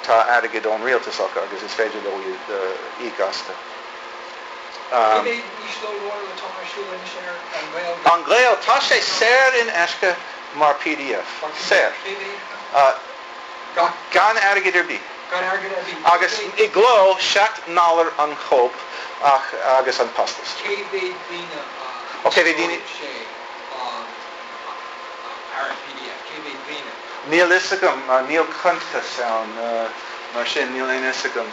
tá airgead ón rialtas acu agus is féidir leo iad a íoc astu. Cé mhéad íoslódáil atá ar siúl anois ar An Gael? An Gael, tá sé saor in aisce mar pdf. Saor. Cé mhéad atá? Gan airgead ar bith. Gan airgead ar bith. Agus i gcló, 7 ndollar an chóip ach agus an costas. Cé mhéad daoine a Ó, cé mhéad daoine? úsáideann sé ar an pdf? Cé mhéad daoine? Níl fhios agam, níl cuntas ann, mar sin níl aon fhios agam.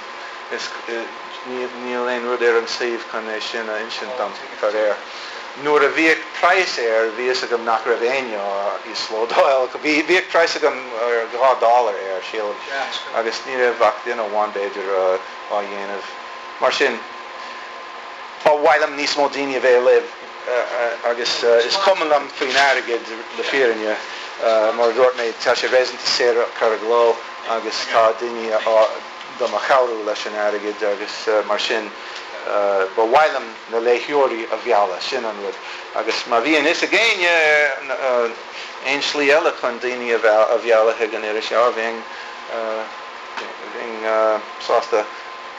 Is níl aon rud ar an suíomh chun é sin a insint dom, faraor. Nuair a bhíodh praghas air, bhí fhios agam nach raibh éinne á íoslódáil. Bhíodh praghas agam 2 dollar air, sílim, agus ní raibh ach duine amháin, b'fhéidir, á dhéanamh. Mar sin, ba mhaith liom níos mó daoine a bheith ag léamh agus is cuma liom faoin airgead, le fírinne. Mar a dúirt mé, tá sé réasúnta saor a chur i gcló agus tá daoine á do mo chabhrú leis an airgead agus mar sin ba mhaith liom na léitheoirí a mhealladh, sin an rud. Agus má bhíonn fhios ag éinne aon slí eile chun daoine a mhealladh chuig an iris, bheinn sásta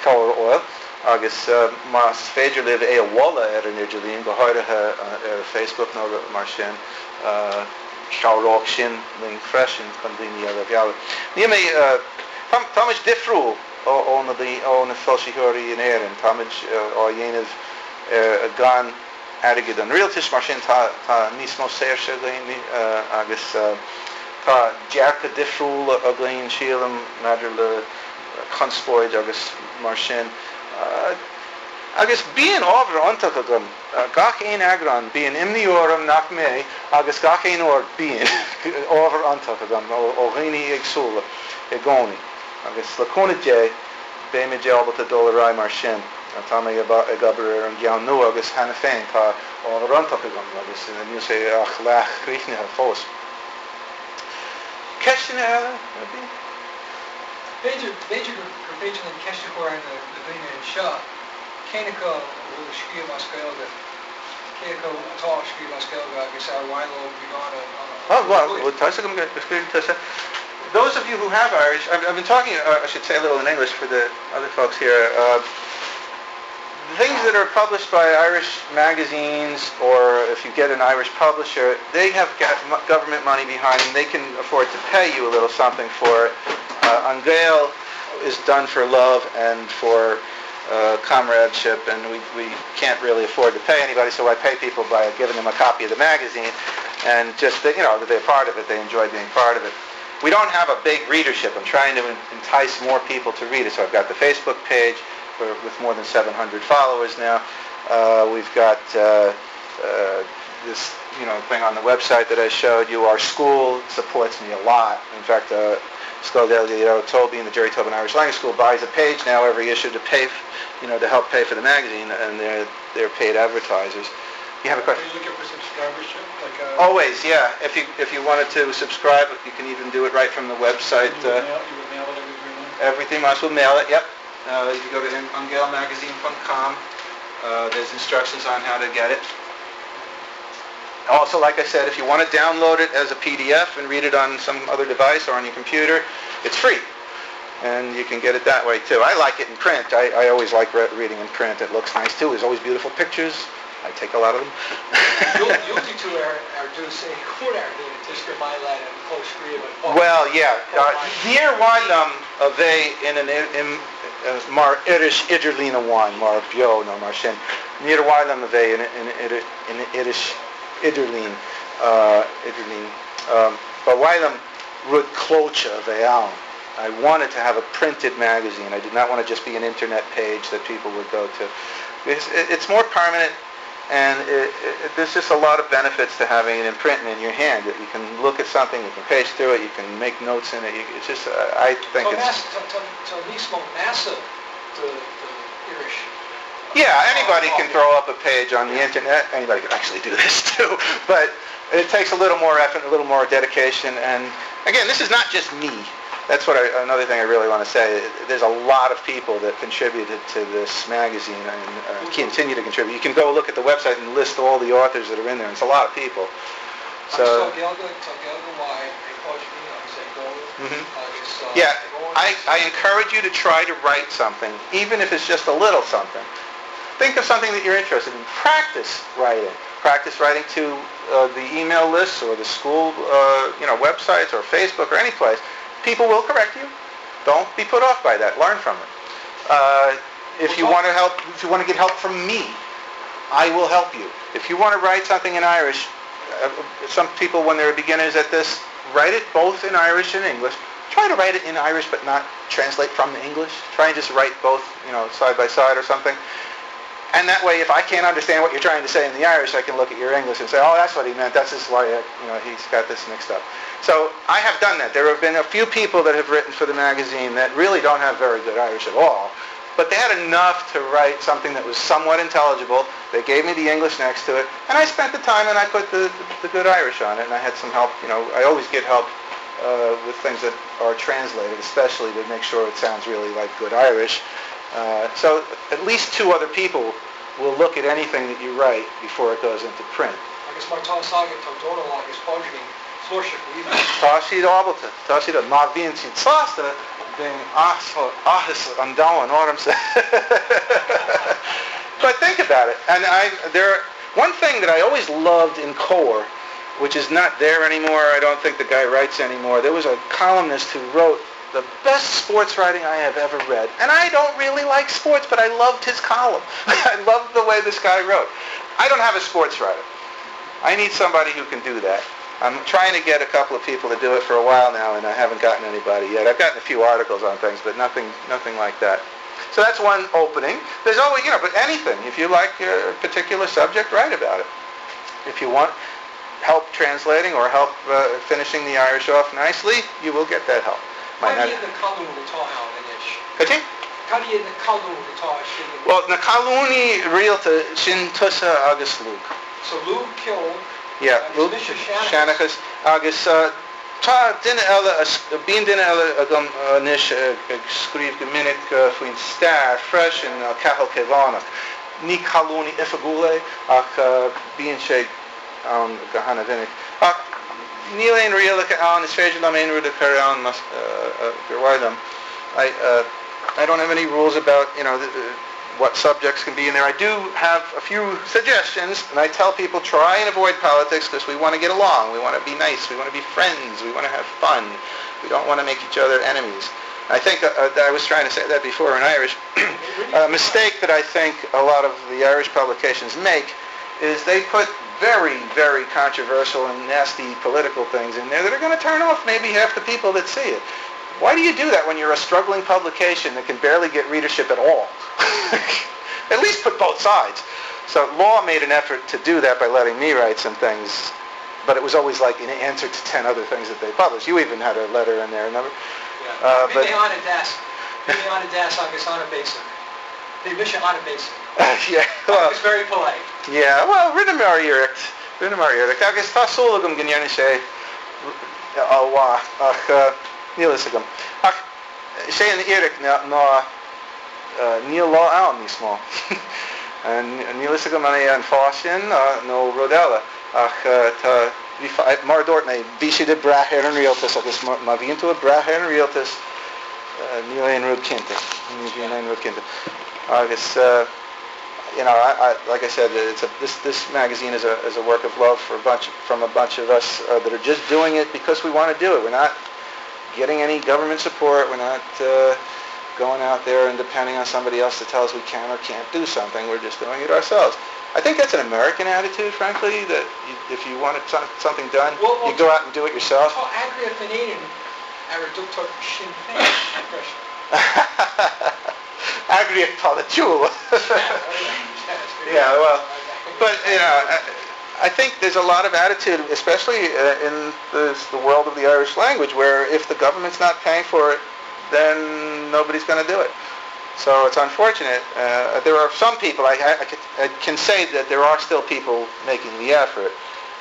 cabhair a fháil. Agus más féidir libh é a mholadh ar an idirlíon, go háirithe ar Facebook nó mar sin, Chabhródh sin linn freisin chun daoine eile a mhealladh. Níl mé, táimid difriúil ó na ó na foilsitheoirí in Éirinn. Táimid á dhéanamh gan airgead an rialtais, mar sin tá tá níos mó saoirse againn agus tá dearcadh difriúil againn, sílim, maidir le conspóid agus mar sin. Agus bíonn ábhar iontach agam. Gach aon eagrán, bíonn imní orm nach mbeidh agus gach aon uair bíonn ábhar iontach agam ó dhaoine éagsúla i gcónaí. Agus le cúnamh Dé, beimid ábalta dul ar aghaidh mar sin. Tá mé ag obair ar an gceann nua agus cheana féin tá ábhar iontach agam agus níl sé ach leath-chríochnaithe fós. Ceisteanna eile ar bith? B'fhéidir, b'fhéidir gur féidir linn ceist a chur ar na daoine anseo. Cén acu a bhfuil ag scríobh as Gaeilge, cé acu atá ag scríobh as Gaeilge agus ar mhaith leo beagán a Oh, well, tá fhios agam go scríobhann tusa. Those of you who have Irish, I've, I've been talking, uh, I should say a little in English for the other folks here. Uh, things that are published by Irish magazines or if you get an Irish publisher, they have government money behind them. They can afford to pay you a little something for it. Uh, An Gael is done for love and for uh, comradeship and we, we can't really afford to pay anybody so I pay people by giving them a copy of the magazine and just that you know that they're part of it they enjoy being part of it we don't have a big readership I'm trying to entice more people to read it so I've got the Facebook page for, with more than 700 followers now uh, we've got uh, uh, this you know thing on the website that I showed you our school supports me a lot in fact uh, Scoil Ghaeilge Tóibín, the Jerry Tobin Irish Language School buys a page now every issue to pay, you know, to help pay for the magazine, and they're they're paid advertisers. You have a question? Are you looking for subscribership? Like a Always, yeah. If you if you wanted to subscribe, you can even do it right from the website. You would, uh, mail, you would mail it every three months? Every three months, we'll mail it, yep. Uh, if you go to angaelmagazine.com, uh, there's instructions on how to get it. Also, like I said, if you want to download it as a PDF and read it on some other device or on your computer, it's free. And you can get it that way too. I like it in print. I, I always like re reading in print. It looks nice too. There's always beautiful pictures. I take a lot of them. Well, yeah. Uh, níor mhaith liom a bheith ina mar iris idirlín amháin, mar Beo nó mar sin. Níor mhaith liom a bheith ina iris idirlín, idirlín. Ba mhaith liom rud clóite a bheith ann. I wanted to have a printed magazine. I did not want to just be an internet page that people would go to. It's, it's more permanent and it, it, there's just a lot of benefits to having it in print and in your hand. That you can look at something, you can page through it, you can make notes in it. You, it's just, uh, I think it's... Tá níos mó measa do iris. Yeah, anybody can throw up a page on the internet. Anybody can actually do this too. But it takes a little more effort, a little more dedication. And again, this is not just me. That's what I, another thing I really want to say. There's a lot of people that contributed to this magazine and uh, continue to contribute. You can go look at the website and list all the authors that are in there. It's a lot of people. So, mm -hmm. Yeah, I, I encourage you to try to write something, even if it's just a little something. Think of something that you're interested in. Practice writing. Practice writing to uh, the email lists or the school uh, you know, websites or Facebook or any place. People will correct you. Don't be put off by that. Learn from it. If you want to help, if you want to get help from me, I will help you. If you want to write something in Irish, some people, when they're beginners at this, write it both in Irish and English. Try to write it in Irish, but not translate from the English. Try and just write both, you know, side by side or something. And that way, if I can't understand what you're trying to say in the Irish, I can look at your English and say, oh, that's what he meant. That's just why, you know, he's got this mixed up. So I have done that. There have been a few people that have written for the magazine that really don't have very good Irish at all, but they had enough to write something that was somewhat intelligible. They gave me the English next to it, and I spent the time and I put the good Irish on it, and I had some help. You know, I always get help with things that are translated, especially to make sure it sounds really like good Irish. So at least two other people will look at anything that you write before it goes into print. Agus mar tá agat tá Dónal agus Pádraigín flúirseach aoibhinn. Tá siad ábalta. Tá siad. Má bhíonn siad sásta, bíonn áthas an domhain ormsa. But think about it. And I, there, one thing that I always loved in Comhar, which is not there anymore, I don't think the guy writes anymore, there was a columnist who wrote the best sports writing I have ever read. And I don't really like sports, but I loved his column. I loved the way this guy wrote. I don't have a sports writer. I need somebody who can do that. I'm trying to get a couple of people to do it for a while now, and I haven't gotten anybody yet. I've gotten a few articles on things, but nothing like that. So that's one opening. There's always, you know, but anything. If you like a particular subject, write about it. If you want help translating or help finishing the Irish off nicely, you will get that help. Cad iad na colúin atá ann anois? Cad é? Cad iad na colúin atá ar siúl anois? Bhuel, na colúnaí rialta, sin tusa agus Lugh. So Lugh, ceol, Yeah, agus Lugh, mise, seanchas. Seanchas, agus tá duine eile, bíonn duine eile agam anois ag scríobh go minic faoin stair freisin, Cathal Caomhánach. Ní colúnaí oifigiúil é ach bíonn sé ann go hana-mhinic. Ach níl aon rialacha ann, is féidir liom aon rud a chur ann más gur mhaith liom. I I don't have any rules about, you know, what subjects can be in there. I do have a few suggestions, and I tell people try and avoid politics because we want to get along, we want to be nice, we want to be friends, we want to have fun. We don't want to make each other enemies. I think I was trying to say that before in Irish. A mistake that I think a lot of the Irish publications make is they put very, very controversial and nasty political things in there that are going to turn off maybe half the people that see it. Why do you do that when you're a struggling publication that can barely get readership at all? At least put both sides. So Law made an effort to do that by letting me write some things, but it was always like in answer to 10 other things that they published. You even had a letter in there, remember? Yeah. Bhí mé an-deas. Bhí mé an-deas agus an-bhéasach. Bhí mise an-bhéasach. Yeah, well, I was very polite. Yeah, well, rinneamar iarracht. Rinneamar iarracht. Agus tá súil agam go ndéanfaidh sé an-mhaith, ach níl fhios agam. Ach sé an fhíric ná níl Lá ann níos mó. Níl fhios agam an é an fáth sin nó rud eile, ach tá, bhí, mar a dúirt mé, bhí siad ag brath ar an rialtas agus má bhíonn tú ag brath ar an rialtas, níl aon rud cinnte. Ní bhíonn aon rud cinnte. Agus, you know, I, I, like I said, it's a, this, this magazine is a, is a work of love for a bunch, from a bunch of us that are just doing it because we want to do it. We're not getting any government support. We're not going out there and depending on somebody else to tell us we can or can't do something. We're just doing it ourselves. I think that's an American attitude, frankly, that you, if you want something done, Well, well, you go out and do it yourself. Tá eagraíocht in Éirinn ar a dtugtar Sinn Féin freisin. Eagraíocht pholaitiúil. Yeah, well, but, you know, I, I think there's a lot of attitude, especially in the, the world of the Irish language, where if the government's not paying for it, then nobody's going to do it. So it's unfortunate. There are some people, I, I, I can say that there are still people making the effort.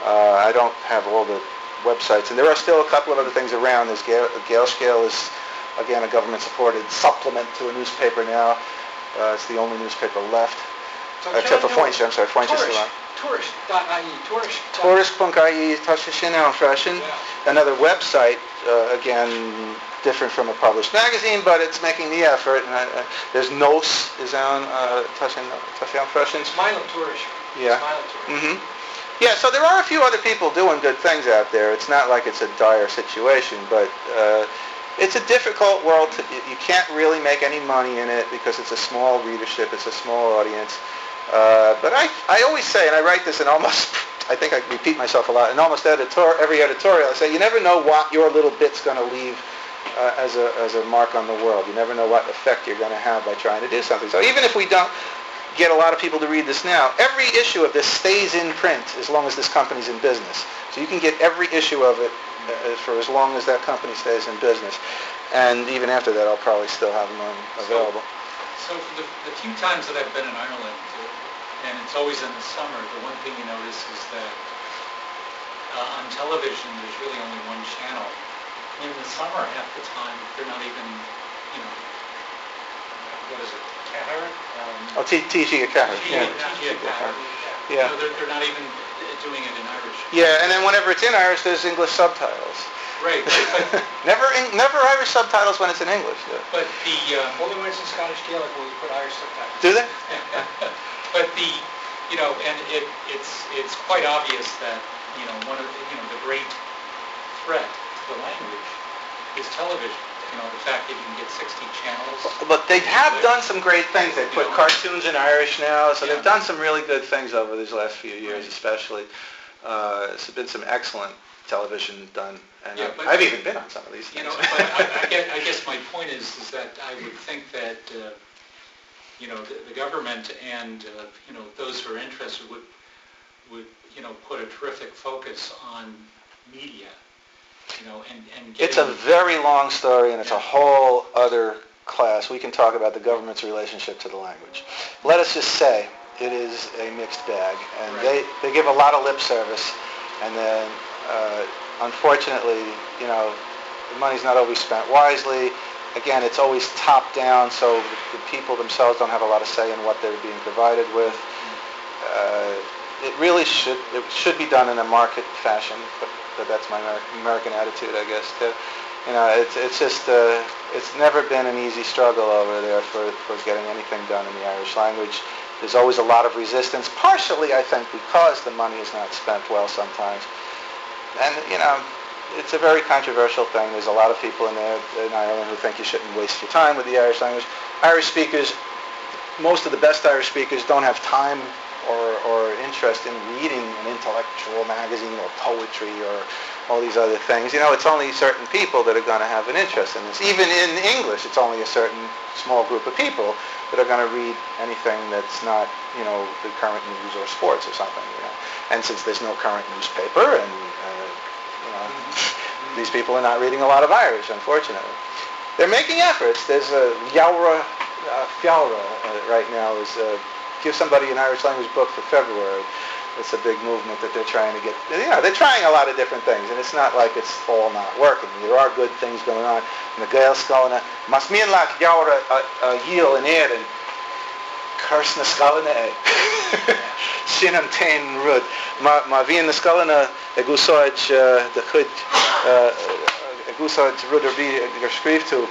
I don't have all the websites, and there are still a couple of other things around. There's Gael, Gaelscéal is, again, a government-supported supplement to a newspaper now. It's the only newspaper left. So Except for John Foinse, I'm sorry, Foinse is still on. Tuairisc.ie, Tuairisc. Tuairisc.ie, tá sé sin ann freisin. Yeah. Another website, again, different from a published magazine, but it's making the effort. And there's Nós is on, tá sé ann freisin. Is maith liom Tuairisc. Yeah. Is maith liom Tuairisc. Yeah, so there are a few other people doing good things out there. It's not like it's a dire situation, but It's a difficult world to, you can't really make any money in it because it's a small readership, it's a small audience. But I, I always say, and I write this in almost, I think I repeat myself a lot, in almost editor, every editorial, I say you never know what your little bit's going to leave as a, as a mark on the world. You never know what effect you're going to have by trying to do something. So even if we don't get a lot of people to read this now, every issue of this stays in print as long as this company's in business. So you can get every issue of it for as long as that company stays in business. And even after that, I'll probably still have them on available. So, so for the, the few times that I've been in Ireland, and it's always in the summer, the one thing you notice is that uh, on television there's really only one channel. And in the summer, half the time, they're not even, you know, what is it, Ceathair? Um, oh, TG Ceathair. Yeah. TG Ceathair. Yeah. No, they're, they're not even doing it in Irish. Yeah, and then whenever it's in Irish, there's English subtitles. Right. But never, in, never Irish subtitles when it's in English. Yeah. But the um, only when it's in Scottish Gaelic will you put Irish subtitles. Do they? but the, you know, and it, it's it's quite obvious that you know one of the, you know the great threat to the language is television. You know, the fact that you can get 60 channels. But they have done some great things. They put cartoons in Irish now, so yeah. they've done some really good things over these last few years, right. especially. Uh, there's been some excellent television done, and yeah, I've, I've even been on some of these You things. know, but I, I, guess, I guess my point is, is that I would think that, uh, you know, the, the government and, uh, you know, those who are interested would, would, you know, put a terrific focus on media, you know, and, and It's a very long story, and it's a whole other class. We can talk about the government's relationship to the language. Let us just say it is a mixed bag, and right. they, they give a lot of lip service, and then uh, unfortunately, you know, the money's not always spent wisely. Again, it's always top down, so the, the people themselves don't have a lot of say in what they're being provided with. Uh, it really should it should be done in a market fashion, but, but that's my American attitude, I guess. Too. You know, it's it's just uh, it's never been an easy struggle over there for, for getting anything done in the Irish language. There's always a lot of resistance, partially, I think, because the money is not spent well sometimes. And, you know, it's a very controversial thing. There's a lot of people in there in Ireland who think you shouldn't waste your time with the Irish language. Irish speakers, most of the best Irish speakers don't have time or, or interest in reading an intellectual magazine or poetry or all these other things. You know, it's only certain people that are going to have an interest in this. Even in English, it's only a certain small group of people that are going to read anything that's not, you know, the current news or sports or something, you know. And since there's no current newspaper and, uh, you know, these people are not reading a lot of Irish, unfortunately. They're making efforts. There's a Leabhar uh, Feabhra uh, right now is uh, give somebody an Irish language book for February. It's a big movement that they're trying to get. You know, they're trying a lot of different things, and it's not like it's all not working. There are good things going on. Na Gaelscoileanna, más mian leat leabhar a dhíol in Éirinn, cuir sna scoileanna é. Sin an t-aon rud. Má, má bhíonn na scoileanna ag úsáid do chuid, ag úsáid rud ar bith gur scríobh tú,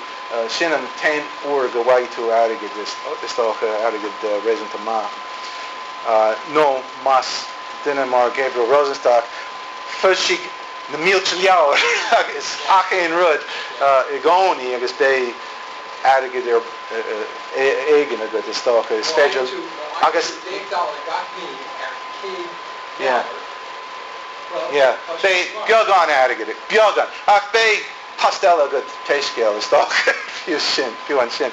sin an t-aon uair go bhfaighidh tú airgead, is dócha, airgead réasúnta maith. Nó más duine mar Gabriel Rosenstock, foilsigh na mílte leabhar agus ach aon rud i gcónaí agus beidh airgead ar éigin agat, is dócha. Is féidir agus. Yeah. Yeah. Beidh beagán airgid, beagán, ach beidh post eile agat pé scéal, is dócha, fiú sin, fiú ansin.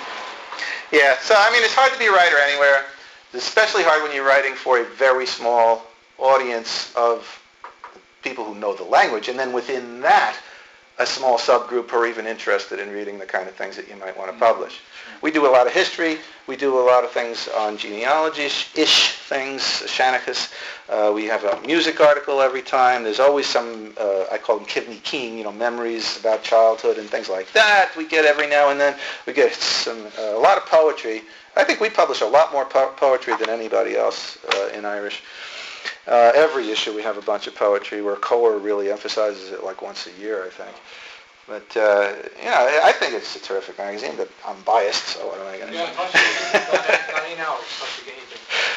Yeah. So, I mean, it's hard to be a writer anywhere. It's especially hard when you're writing for a very small audience of people who know the language, and then within that, a small subgroup who are even interested in reading the kind of things that you might want to publish. We do a lot of history. We do a lot of things on genealogy-ish things, Seanchas. Uh, we have a music article every time. There's always some, uh, I call them Kivney King, you know, memories about childhood and things like that we get every now and then. We get some, uh, a lot of poetry. I think we publish a lot more po poetry than anybody else uh, in Irish. Uh, every issue we have a bunch of poetry where Comhar really emphasizes it like once a year, I think. But, uh, you know, I think it's a terrific magazine, but I'm biased, so what am I going to yeah, do?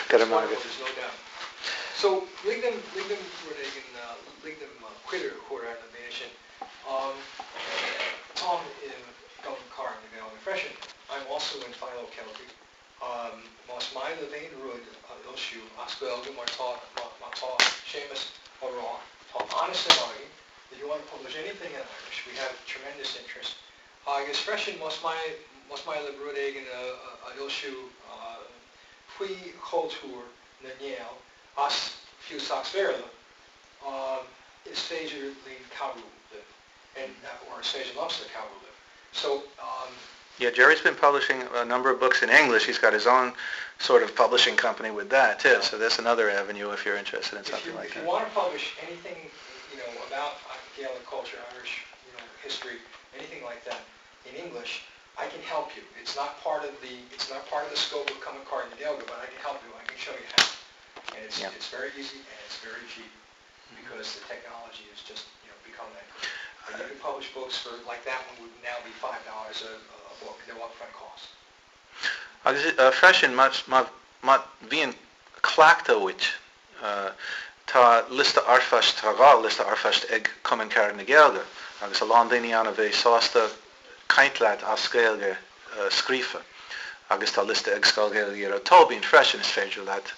Got a there's no doubt. So, lig dom, lig dom rud éigin, lig dom cuireadh a chur ar na daoine sin. Um, táim maith libh aon rud a fhoilsiú as Gaeilge mar tá mar tá Séamus á rá, tá an-suim againn, if you want to publish anything in Irish, we have tremendous interest. Agus freisin más maith más maith libh rud éigin a fhoilsiú faoi chultúr na nGael as fiú Sacs-Bhéarla, is féidir linn cabhrú libh and or is féidir liomsa cabhrú libh. So um. Yeah, Jerry's been publishing a number of books in English. He's got his own sort of publishing company with that too. So that's another avenue if you're interested in something you, like if that. If you want to publish anything, you know, about Gaelic culture, Irish, you know, history, anything like that in English, I can help you. It's not part of the it's not part of the scope of Cumann Cairde na Gaeilge, but I can help you. I can show you how. And it's Yeah. it's very easy and it's very cheap because the technology has just, you know, become that good. And you can publish books for like that one would now be $5 a, a book, no upfront cost. Agus freisin, má bhíonn cleachtadh uait, tá liosta r-phoist, tá 2 liosta r-phoist ag Cumann Carad na Gaeilge agus a lán daoine ann a bheidh sásta caint leat as Gaeilge scríofa. Agus tá liosta ag Scoil Ghaeilge Ghearóid Tóibín freisin, is féidir leat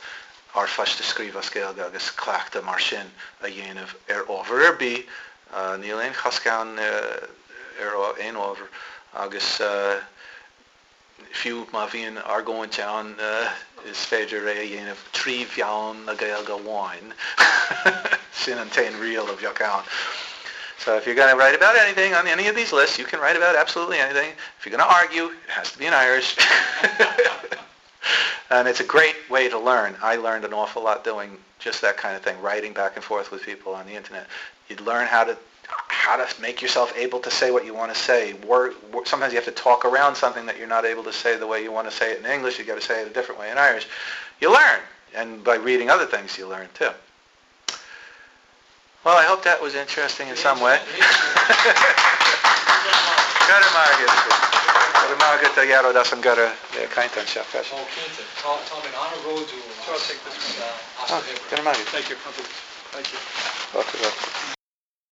r-phoist a scríobh as Gaeilge agus cleachtadh mar sin a dhéanamh ar ábhar ar bith, níl aon chosc ann ar aon ábhar agus fiú má bhíonn argóint ann is féidir é a dhéanamh trí mheán na Gaeilge amháin, sin an t-aon riail a bheadh ann. So if you're going to write about anything on any of these lists, you can write about absolutely anything. If you're going to argue, it has to be in Irish. And it's a great way to learn. I learned an awful lot doing just that kind of thing, writing back and forth with people on the internet. You'd learn how to how to make yourself able to say what you want to say. Word, sometimes you have to talk around something that you're not able to say the way you want to say it in English. You've got to say it a different way in Irish. You learn. And by reading other things, you learn too. Well, I hope that was interesting in some way. Go raibh maith agat. Go raibh maith agat a Ghearóid as an gcuireadh le caint anseo freisin. Ó cinnte. Tá mé an-bhródúil as Sure, I'll take this one. as do obair. Go raibh maith agat. Thank you. Thank you. Fáilte romhat.